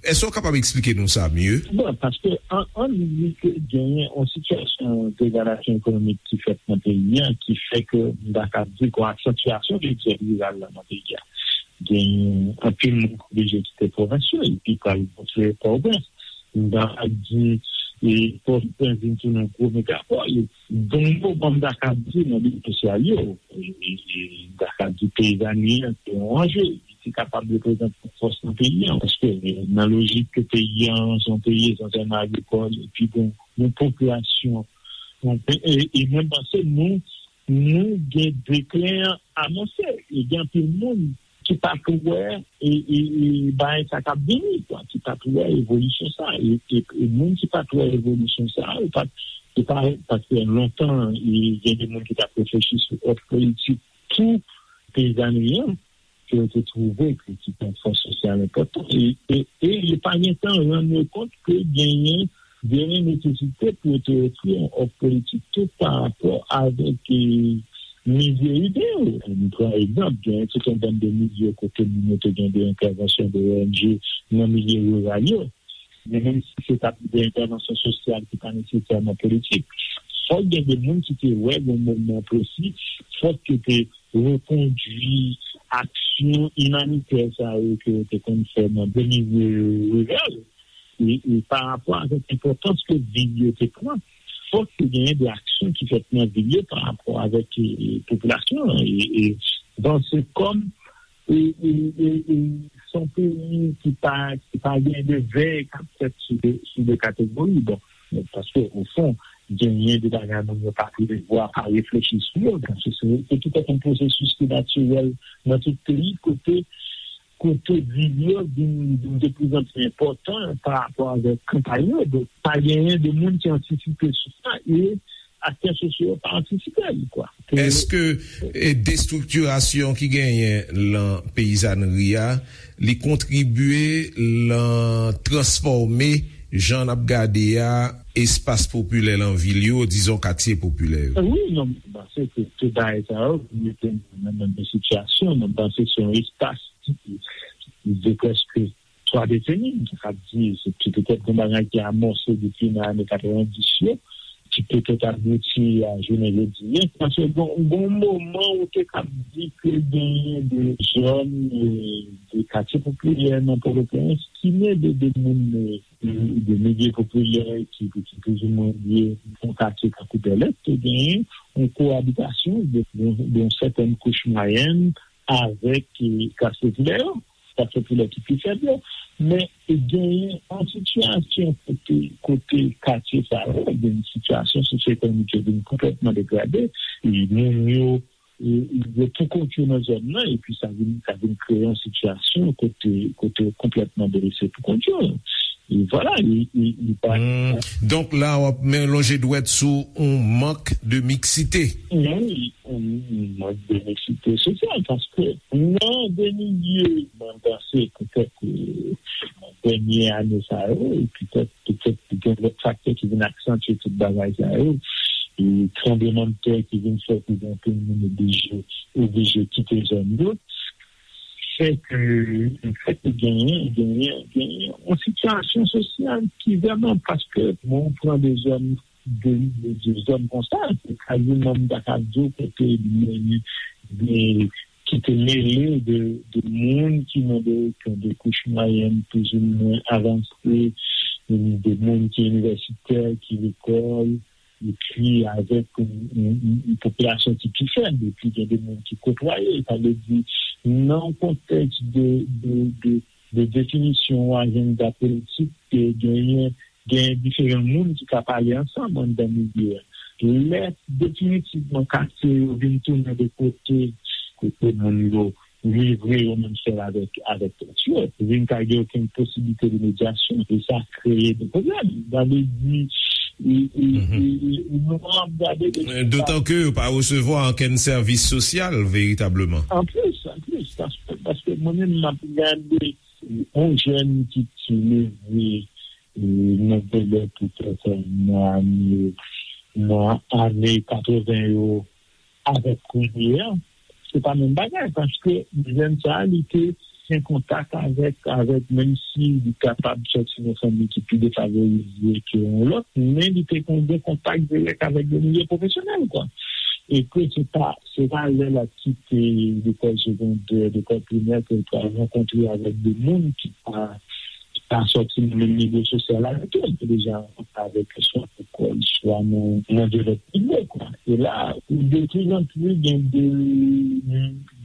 Èske w kapab eksplike nou sa mye? Bon, paske an, an di ke genyen yon sitiyasyon degradasyon ekonomik ki fèt nan peyi a, ki fè ke m ta ka di gon aksantyasyon de dyòl riral la nan peyi a. Gen anpil moun k oblije kite pwovens yo, epi k al konstwi Pòtoprens. M ta ka di, e, Pòtoprens vin tounen yon gwo megapòl. Donk, bon, m ta ka di nan lit sosyal yo, e, e, e, m ta ka di peyizanri an, se yon anje. Li te kapab reprezante yon fòs nan peyi an, paske, e, nan lojik ke peyi an, se yon peyi esansyèlman agrikòl, epi bon, yon popilasyon, yon pe- e, e mwen panse nou, nou gen deklen an anonse. E gen anpil moun ki pa t wè, e, e, e, bagay sa k ap vini, kwa, ki pa t wè evolisyon sa. E, e, e moun ki pa t wè evolisyon sa, yo pa t, yo pa, paske lontan, e, gen de moun ki t ap reflechi sou òf politik pou peyizanri an, ke yo te twouve ke se te yon fòs sosyal enpòtan. E, e, e yo pa gen tan rann yo kont ke genyen, genyen nesesite pou yo te ofri yon òf politik tou pa rapò avèk, e, milye ide yo. M pran egzanp, genyen tout yon bann de milye kote moun yo te gen de entèvansyon de O N G nan milye riral yo. Men menm si se t ap de entèvansyon sosyal ki pa nesesèman politik, fòk gen de moun ki te wè yon moman presi, fòk yo te rekondwi aksyon imanitè sa yo ke yo te konn fè nan de milye riral. E, e pa rapò avèk enpòtans ke vil yo te pran, fòk te genyen de aksyon ki fèt nan vil yo pa rapò avèk, e, e, popilasyon an. E, e, bon, se kòm, e, e, e, e, se yon peyi ki pa, ki pa gen de vèy k ap fèt sou de, sou de kategori. Bon, paske, o fon, genyen de bagay moun yo pa prevwa, pa reflechi sou yo. Donk, se, se, se petèt yon pwosesis ki natirèl nan tout peyi, kote, kote vil yo vin, vin de plus en plus enpòtan pa rapò avèk kanpay yo. Donk, pa genyen de moun ki antisipe sou sa, e aktè sosyo yo pa antisipe li, kwa. Ke Èske, e, destriktirasyon ki genyen lan peyizanri a, li kontribye lan transfòme jan n ap gade a, espas popilè lan vil yo, dizon katye popilè yo? Wi, non, m panse ke tout bagay sa yo mete nou nan menm sitiyasyon. M panse se yon espas ki, ki de prèske twa deseni, m ta ka di, se, se petèt yon bagay ki amòse depi nan ane katrevendis yo, ki petèt abouti a jounen jodi a. Paske gon, gon moman ou te ka di ke genyen de zòn, e, de katye popilè nan Pòtoprens ki gen de, de moun, e, de milye popilè ki, ki plizoumwen lye yon katye tankou Bèlè, te genyen yon koabitasyon de, de, de yon sètèn kouch mwayèn avèk, e, klas popilè yo, klas popilè ki pi fèb yo. Men genyen yon sitiyasyon kote, kote katye sa yo, gen yon sitiyasyon sosyo-ekonomik yo vin konplètman degrade, e moun yo, e, yo pou kont yo nan zòn nan, epi sa vin, sa vin kreye yon sitiyasyon kote, kote yo konplètman delese pou kont yo. E vwala, e, e, e pa Hmm. Donk la, w ap men lonje dwèt sou yon mank de miksite. Wi, wi, wi. Benisite sosyal, paske nan de milye, mwen panse, petèt, dènye ane sa yo, e petèt, petèt gen lòt faktè ki vin aksantye tout bagay sa yo, e tranblemanntè ki vin fè ke gen anpil moun oblije, oblije kite zòn yo, fè ke, fè ke genyen, genyen, genyen yon sitiyasyon sosyal ki vrèman, paske mwen pran de zòn de, de, de zòn konsa, se kaziman m ta ka di w kote gen de ki te mele de, de moun ki nan de, de kouch mwayèn plizoumwen avanse, de moun ki inivèsitè, ki lekòl, epi avèk yon, yon, yon, yon popilasyon ki pi fèb, epi gen de moun ki kotwaye. Sa vle di, nan yon kontèks de, de, de, de definisyon ajanda politik, ke genyen, gen diferan moun ki ka pale ansanm anndan milye a. Lè definitivman katye yo vin tounen de kote, kote moun yo livre yo menm sèl avèk, avèk tèt yo, vin pa gen okenn posiblite de medyasyon, e sa kreye de pwoblèm. Sa vle di, e, e, e, e, nou ap gade de Dotan ke yo pa resevwa okenn sèvis sosyal veritableman. Anplis, anplis, paske, paske mwen menm, m ap gade yon jèn ki, ki leve, e, nan Bèlè petèt nan ane, nan ane katreven yo avèk kounye a, se pa menm bagay, paske jèn sa a, li te an kontak avèk, avèk, menm si li kapab sòti nan fanmi ki pi defavorize ke yon lòt, men li te kon-, gen kontak dirèk avèk de milye pwofesyonèl, kwa. E ke se pa, se pa lè l ap kite lekòl segondè, lekòl primè, ke l pral rankontre avèk de moun ki pa, ki pa sòti nan menm nivo sosyal avèk yo, ki deja rankontre avèk yo swa lekòl, swa nan, nan de lòt nivo, kwa. E la, de plus en plus, gen de,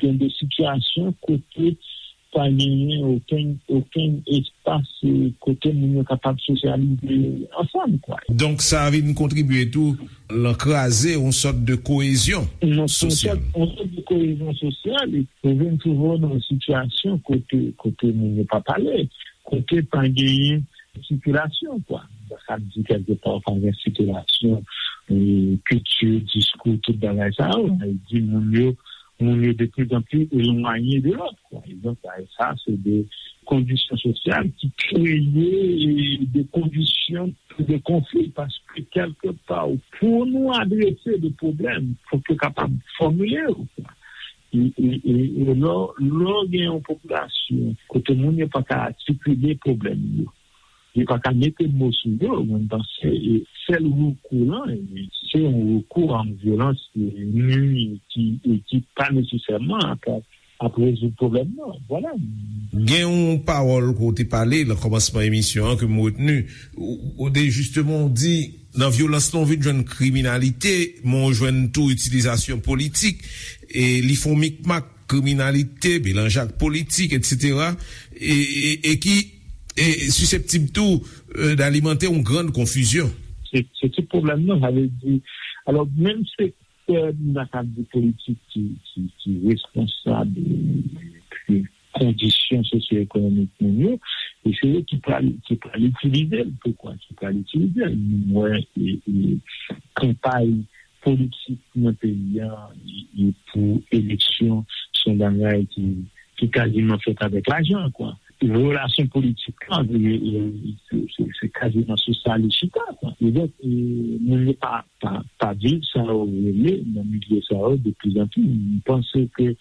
gen de sitiyasyon kote pa genyen okenn, okenn espas, eh, kote moun yo kapab sosyalize ansanm, kwa. Donk, sa vin kontribye tou lan kraze yon sòt de koyezyon sosyal. Yon sòt, yon sòt de koyezyon sosyal, e ou vin twouve w nan yon sitiyasyon kote, kote moun yo pa pale, kote pa genyen sikilasyon, kwa. Sa k di kèlkepa pa gen sikilasyon, eh, kilti, diskou, tout bagay sa yo. Sa vle di moun yo, moun yo de plus en plus elwanye de lòt, kwa. E donk, sa, sa, se de kondisyon sosyal ki kreye, eh, de kondisyon de konfli, paske kèlkepa, pou nou adrese de pwoblèm, fòk yo kapab fòmile yo, kwa. E, e, e, e lò, lò gen yon popilasyon kote moun yo pa ka atikile pwoblèm yo, yo pa ka mete mo sou yo, mwen panse, e, sèl rekou lan, e, se yon rekou an vyolans, e, nui ki, e, ki pa nesesèman ap, ap rezoud pwoblèm nan. Vwala. Gen yon pawòl ke w te pale nan kòmansman emisyon an ke m retni. Ou, ou te jisteman w di, nan vyolans lan, w vin jwenn kriminalite, men w jwenn tou itilizasyon politik. E li fè yon mikmak, kriminalite, melanj ak politik, etsetera, e, e, e ki e siseptib tou, e, d'alimante yon grann konfizyon. Se, se tout pwoblèm nan, sa vle di, alò, menm sektè, n a ka di, politik ki, ki, ki responsab, e, de kondisyon sosyo-ekonomik moun yo, e se yo ki pral, ki pral itilize l. Poukwa? Ki pral itilize l. Nou wè, e, e, kanpay politik nan peyi a, e, e pou eleksyon, se yon bagay ki, ki kaziman fèt avèk lajan, kwa. Relasyon politik lan, e, e, se, se, se kaziman sou sa li chita, kwa. E donk, e, moun yo pa, pa, pa viv sa yo rele nan milye sa yo de plus en plus. M panse ke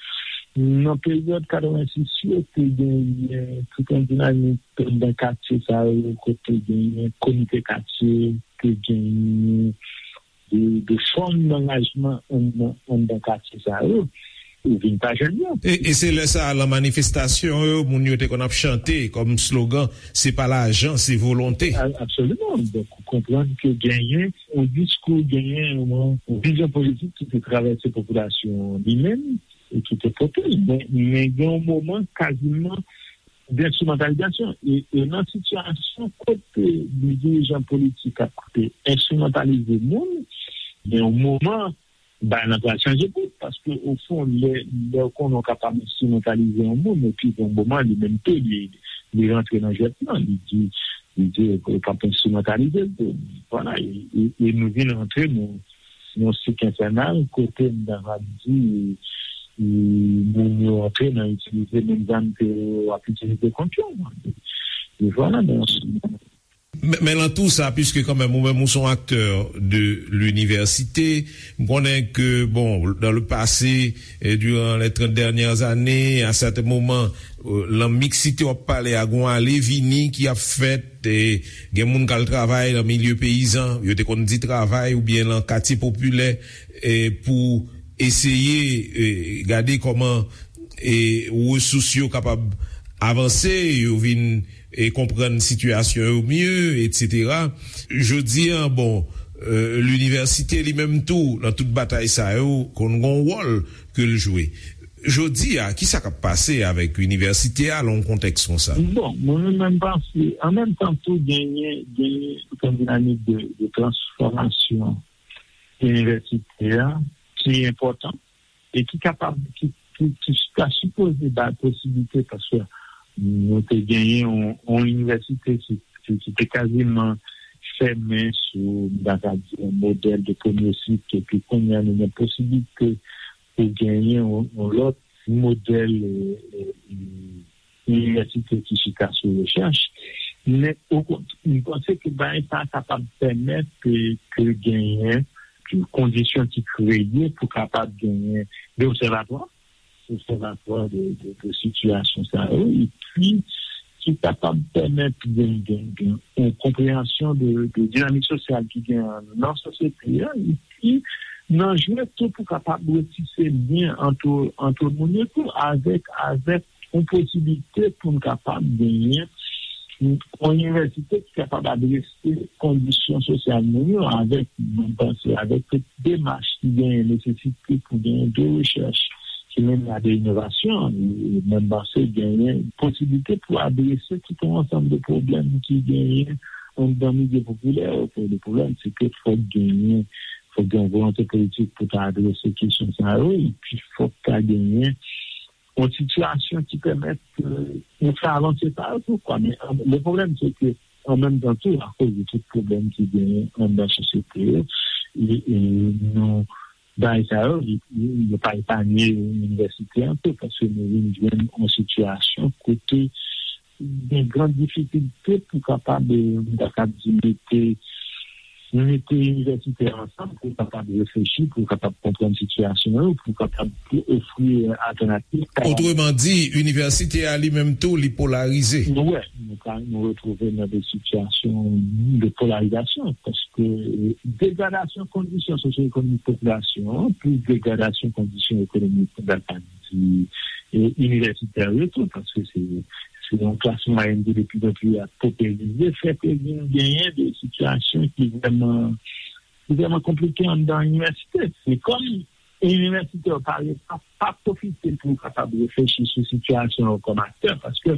nan peryòd katrevensis yo, te genyen tout yon dinamik anndan katye sa yo, kote genyen komite katye, te genyen de, de fòm d'angajman anndan, anndan katye sa yo, ou vin pa jwenn yo. E, e se lè sa a, lan manifestasyon yo, moun yo te konn ap chante kòm slogan, "Se pa lajan, se volonte." A-, absoliman. Donk, ou konprann ke genyen yon diskou, genyen yon, yon vizyon politik ki te travèse popilasyon an li menm, e ki te pote l. Men, men gen yon moman, kaziman, denstrimantalizasyon. E, e nan sitiyasyon kote de dirijan politik ap koute enstrimantalize moun, gen yon moman, bagay lan pral chanje bout, paske, ofon, lè, lè w konnen w kapab enstrimantalize yon moun, epi gen yon moman, li menm tou, li, li rantre nan jwèt lan, li di, li di, "Ou p ap enstrimantalize l tou." Vwala, e, e, e nou vin rantre nan, yon sik enfènal, kote m ta va di, e, moun yo antre nan itilize menm zam ke w ap itilize kont yo. E vwala, men. Men, men lan tou sa, piske kanmenm ou menm ou se yon aktè de linivèsite, m konnen ke, bon, dans le passé, et durant les trente dernières années, à certains moments, euh, lan miksite w ap pale a, gon ale vini ki ap fèt, e gen moun k al travay nan milye peyizan, yo te konn di travay, oubyen lan katye popilè, e pou eseye, e, gade kòman, e, resous yo kapab avanse, yo vin, e, konprann sitiyasyon yo mye, etsetera. Jodi a, bon, e, linivèsite li menm tou, nan tout batay sa yo, konn gon wòl ke l jwe. Jodi a, kisa k ap pase avèk inivèsite a lan yon kontèks konsa? Bon, mwen menm, mwen panse, an menm tan tou, genyen, genyen yon dinamik de, de transfòmasyon inivèsite a ki enpòtan e ki kapab, ki, ki, ki ta sipoze bay posiblite, paske nou te genyen yon, yon inivèsite ki, ki, ki te kaziman fèmen sou, m ta ka di, yon modèl de premye sik, epi kounye a nou gen posiblite pou genyen yon, yon lòt modèl, e, e, e, inivèsite ki chita sou rechèch. Men, okontrè, m panse ke bagay sa a kapab pèmèt ke, ke genyen kondisyon ki kreye pou kapab genyen de obsèvatwa, obsèvatwa de, de, de sitiyasyon sa yo, epi ki kapab pèmèt gen, gen, gen yon konpreyansyon de, de dinamik sosyal ki gen nan sosyete a, epi nan jwe tou pou kapab retise lyen ant, ant moun yo tou avèk, avèk yon posiblite pou n kapab genyen yon inivèsite ki kapab adrese kondisyon sosyal moun yo avèk, mwen panse, avèk tout demach ki genyen nesesite pou genyen de rechèch ki mennen a de inovasyon. E mwen panse genyen posiblite pou adrese tout yon ansanm de pwoblèm ki genyen anndan milye popilè yo. Pou de pwoblèm, se ke fòk genyen, fòk gen yon volonte politik pou ta adrese kesyon sa yo, epi fòk ta genyen yon sitiyasyon ki pèmèt, e, nou fè avanse sa yo tou, kwa. Men, an, le pwoblèm, se ke, an menm tan tou, akoz de tout pwoblèm ki genyen anndan sosyete yo, e, e nou, bagay sa yo, yo, yo pa epanye inivèsite an tou, paske nou vin jwenn yon sitiyasyon kote gen gran difikilte pou kapab, e, m ta kab di, mete, mete inivèsitè ansanm pou kapab reflechi, pou kapab konprann sitiyasyon yo, pou kapab ofri, e, altènativ. Otreman di, inivèsite a li menm tou, li polarize. Nou wè, nou ka, nou retwouve nan de sitiyasyon de polarizasyon, paske, e, degradasyon kondisyon sosyo-ekonomik popilasyon an, plis degradasyon kondisyon ekonomik, m ta ka di, e, inivèsitè yo tou, paske se, se yon klas mwayèn ki de pli an pli ap poperize, fè ke vin genyen de sitiyasyon ki vrèman, ki vrèman konplike anndan inivèsite. Se kòm inivèsitè yo pa, pa, pa pwofite pou kapab reflechi sou sitiyasyon yo kòm aktè, paske,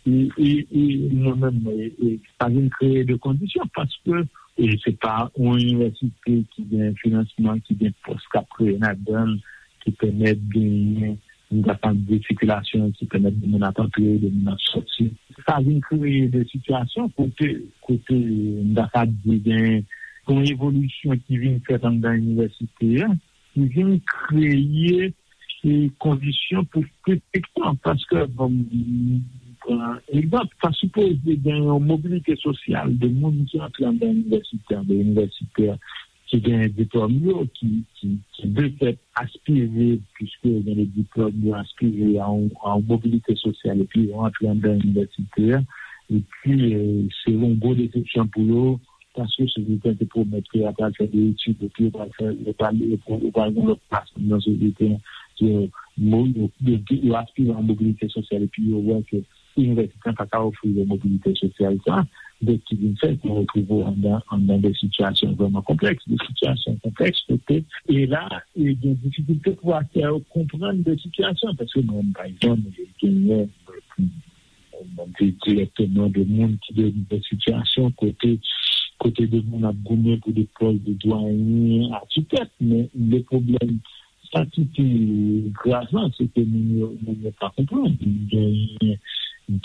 e, e, e, mwen menm, e, e, sa vin kreye de kondisyon, paske, e, se pa yon inivèsite ki gen finansman, ki gen pòs k ap kreye ladan l, ki pèmèt genyen, m ta ka di, sikilasyon ki pèmèt de moun ap antre, de moun ap sòti. Sa vin kreye de sitiyasyon kote, kote, m ta ka di, gen yon evolisyon ki vin fèt anndan inivèsite a, ki vin kreye, e, kondisyon pou kritik lan. Paske, bon, m pran egzanp, ta sipoze gen yon mobilite sosyal de moun ki antre anndan inivèsite a, de inivèsitè ki gen diplòm yo, ki, ki, ki de fèt aspire, piske yo gen de diplòm, yo aspire a yon, a yon mobilite sosyal, epi yo antre anndan inivèsite a, epi, e, se yon gwo desepsyon pou yo, paske sosyete an te pwomèt ke y ap al fè de etid, epi yo pral fè, yo pral, yo pral gen lòt plas nan sosyete an. Yo, yo, yo, yo aspire a yon mobilite sosyal, epi yo wè ke inivèsite an pa ka ofri yo mobilite sosyal sa, donk ki vin fè ke w retwouve w anndan, anndan de sitiyasyon vrèman konplèks, de sitiyasyon konplèks kote, e la, e gen difikilte pou aktè yo konprann de sitiyasyon, paske mwen, pa egzanp, genyen, mwen, mwen, mwen, dirèkteman de moun ki de, de sitiyasyon kote, kote de moun ap goumen pou de pòs de dwayen, akitèk, men le pwoblèm Sa ki pi grav lan, se ke moun yo, moun yo pa konprann. Genyen,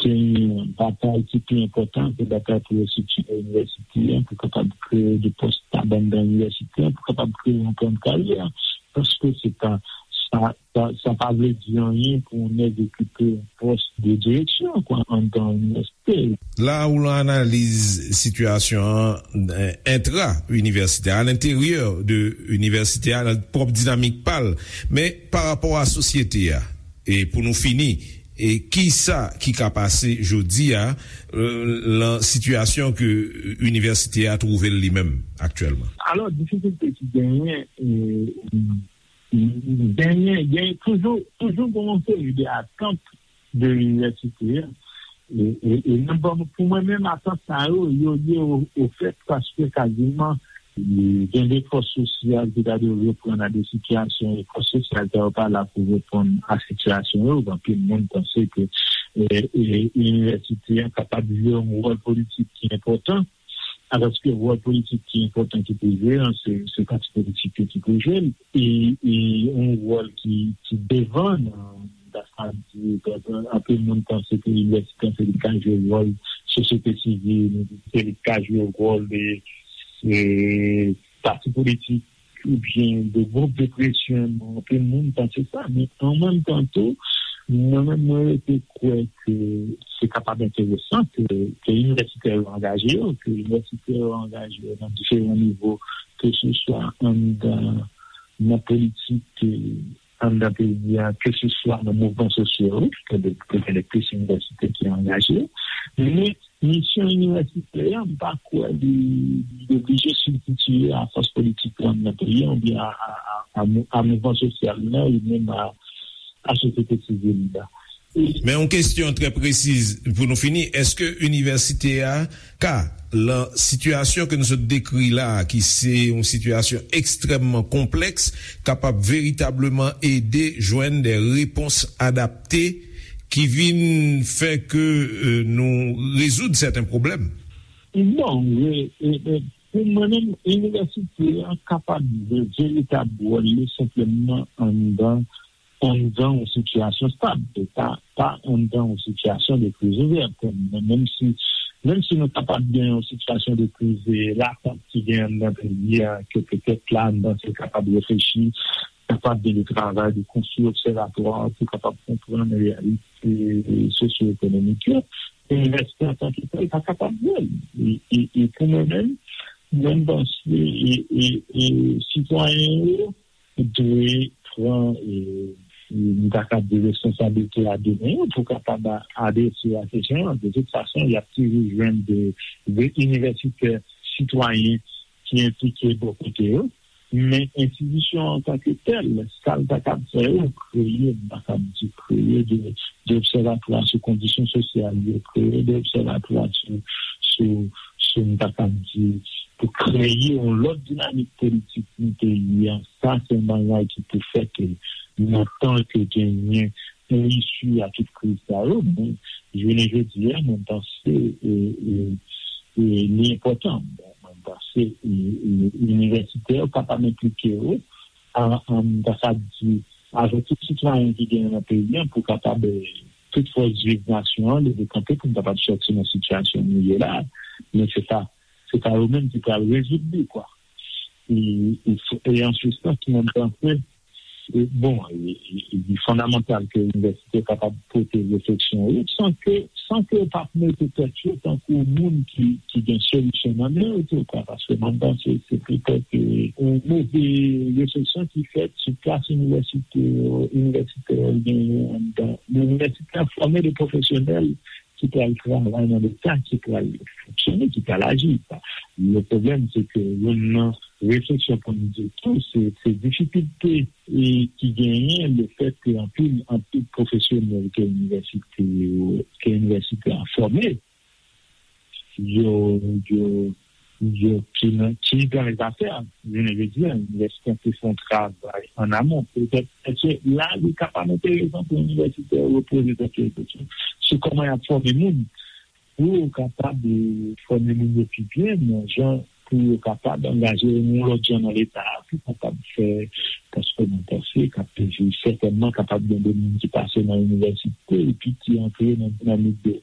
Gen batay ki pi enpòtan, se batay pou restrikture inivèsite a, pou kapab kreye de pòs stab anndan inivèsite a, pou kapab kreye yon plan de karyè. Paske se pa, sa, sa, sa pa vle di anyen pou yon nèg okipe yon pòs de direksyon, kwa, anndan inivèsite. La ou lan analiz sitiyasyon an, eh, entra inivèsitè, a lenteryè de inivèsite a, nan pwòp dinamik pa l, men pa rapò a sosyete a. E pou nou fini, e ki sa ki ka pase jodi a, eh, lan sitiyasyon ke inivèsite a twouve l li menm aktyèlman? Alò, difikilte ki genyen, eh, genyen, genyen toujou, toujou gen yon seri de atant de inivèsite a. E, e, e nan bon, pou mwen menm, atant sa yo, yo lye o, o fèt paske kaziman, e, gen de fòs sosyal ki ta dwe reponn a de sitiyasyon, e fòs sosyal sa yo pa la pou reponn a sitiyasyon yo. Anpil moun panse ke, e, e, inivèsite a kapab jwe yon wòl politik ki enpòtan, alòske wòl politik ki enpòtan ki pou jwe an, se, se pati politik yo ki pou jwe l. E, e yon wòl ki, ki devan nan, nan sa di, anpil moun panse ke inivèsite se li k ka jwe wòl sosyete sivil, se li k ka jwe wòl de, e, pati politik oubyen de gwoup de presyon, anpil moun panse sa, men an menm tan tou, mwen menm, mwen rete kwè ke se kapab enteresan ke, ke inivèsitè yo angaje yo, ke inivèsitè yo angaje yo nan diferan nivo, ke se swa anndan, nan politik, eh, anndan peyi a, ke se swa nan mouvman sosyo yo, ke de, ke gen de plis inivèsitè ki angaje yo. Men misyon inivèsitè a, m pa kwè li, li oblije sibstitiye a fòs politik lan nan peyi a, oubyen a, a, a, a mou-, a mouvman sosyal la, oubyen a, a sosyete sivil la. E men yon kesyon trè presiz pou nou fini, èske inivèsite a ka, lan sitiyasyon ke nou sot dekri la a, ki se yon sitiyasyon ekstrèmman konplèks, kapab veritableman ede jwenn de repons adapte ki vin fè ke, eh, nou rezoud sèten pwoblèm? Bon, e, e, e, pou mwen menm, inivèsite a kapab jwe veritab wòl li senpleman anndan, anndan yon sitiyasyon stab, e pa, pa anndan yon sitiyasyon de kriz ouvè. Menm si, menm si nou kapab gen yon sitiyasyon de kriz, e, latant ki gen anndan peyi a, ke petèt la, anndan se kapab reflechi, kapab gen de travay de konstwi obsèvatwa pou kapab konprann reyalite sosyo-ekonomik yo. Inivèsite antanke tèl pa kapab jwe l. E, e, e pou mwen menm, mwen m panse, e, e, e sitwayen yo dwe pran, e, e, m ta ka di responsablite a de men yo pou kapab a-, adrese a kesyon an. De tout fason, y ap toujou jwenn de, de inivèsitè sitwayen ki enplike bò kote yo. Men enstitisyon an antanke tèl, sa l ta kab fè yo, kreye, m ta kab di kreye de, de obsèvatwa sou kondisyon sosyal yo, kreye de obsèvatwa sou, sou, sou, m ta kab di, pou kreye yon lòt dinamik politik nan peyi a. Sa se yon bagay ki pou fè ke nan tan ke genyen yon isi a tout kriz sa yo, men jounen jodi a, mwen panse, e, e, e, li enpòtan. Bon, mwen panse, e, e, inivèsitè yo kapab enplike yo, a, a, m ta sa di, avèk tout sitwayen ki genyen nan peyi a, pou kapab, e, tout fòs viv nasyon an, leve kanpe pou n kapab sòti nan sitiyasyon nou ye la. Men se pa, se pa yo menm ki pral rezoud li, kwa. E, e, e an se sans, mwen panse, e, bon, e, e, e, li fondamantal ke inivèsite kapab pote refleksyon yo, san ke, san ke yo p ap mete tèt yo tankou moun ki, ki gen solisyon nan men yo tou, kwa, paske mwen panse se petèt, e, yon move refleksyon ki fèt sou plas inivèsite yo, inivèsitè yo genyen anndan. Inivèsite a fòme de pwofesyonèl ki pral travay nan Leta, ki pral fonksyone, ki pral aji. Le pwoblèm, se ke youn nan refleksyon pou n di tou, se, se difikilte, e, ki genyen lefèt ke anpil, anpil pwofesyonèl ke inivèsite yo, ke inivèsite a fòme, yo, yo, yo ki nan, ki nan lezafè. Jounen jodi a, inivèsite an te fè yon travay an amon. Petèt, èske la, li kapab enteresan pou inivèsitè yo poze tèt yo kesyon sou kòman y ap fòme moun, pou yo kapab, e, fòme moun yo pi byen, nan jan pou yo kapab angaje yo nan yon lòt jan nan Leta a, pou kapab fè, paske mwen panse k ap sètènman kapab gen de moun ki pase nan inivèsite epi ki antre nan dinamik de,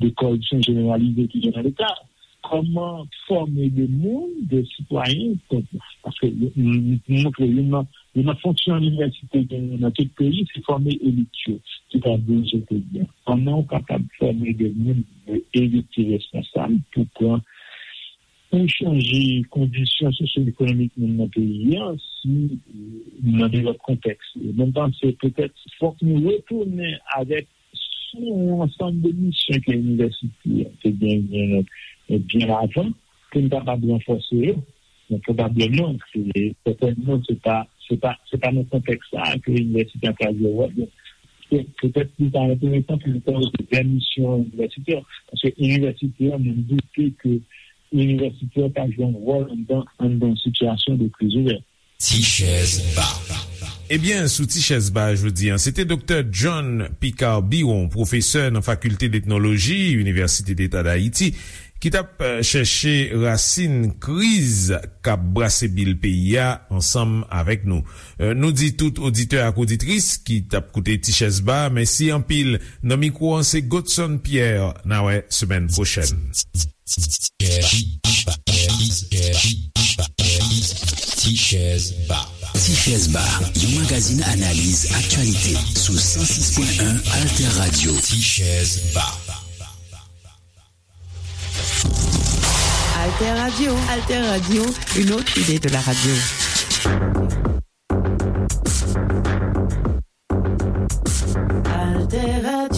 de kòripsyon jeneralize ki gen nan Leta a. Kòman fòme de moun, de sitwayen, paske m, m, m montre youn nan, youn nan fonksyon inivèsite genyen nan tout peyi, se fòme elit yo ki ta dirije peyi a. Kòman w kapab fòme de moun, de elit ki responsab pou pran, pou chanje kondisyon sosyo-ekonomik moun nan peyi a, si, euh, nan de lòt kontèks. E mwen panse petèt fòk nou retounen avèk sou yon ansanm de misyon ke inivèsite a te genyen, eh, byen avan, pou n kapab ranfòse yo. Men pwobableman, se, sètènman, se pa, se pa, se pa nan kontèks sa a ke inivèsite a ka jwe wòl li. Pe-, petèt li ta enteresan pou n pale de vè misyon inivèsite a. Paske inivèsite a, mwen doute ke inivèsite a ka jwe yon wòl anndan, anndan sitiyasyon de kriz ouvè. Ti chèz ba. Ebyen, sou Ti chèz ba jodi a, se te Doktè John Picard Biron, pwofesè nan Fakilte d Etnoloji, Inivèsite Deta d Ayiti, ki t ap, eh, chèche rasin kriz k ap brase bil peyi a ansanm avèk nou. Eh, nou di tout oditè ak oditris ki t ap koute Ti chèz ba, mèsi anpil. Nan mikwo an, se Godson Pierre. N a wè semèn pwochèn. Ti chèz ba. Ti chèz ba, yon magazin analiz aktyalite sou san sis pwen en Alter Radio. Ti chèz ba. Alter Radio. Alter Radio, une autre idée de la radio. Alter Radio.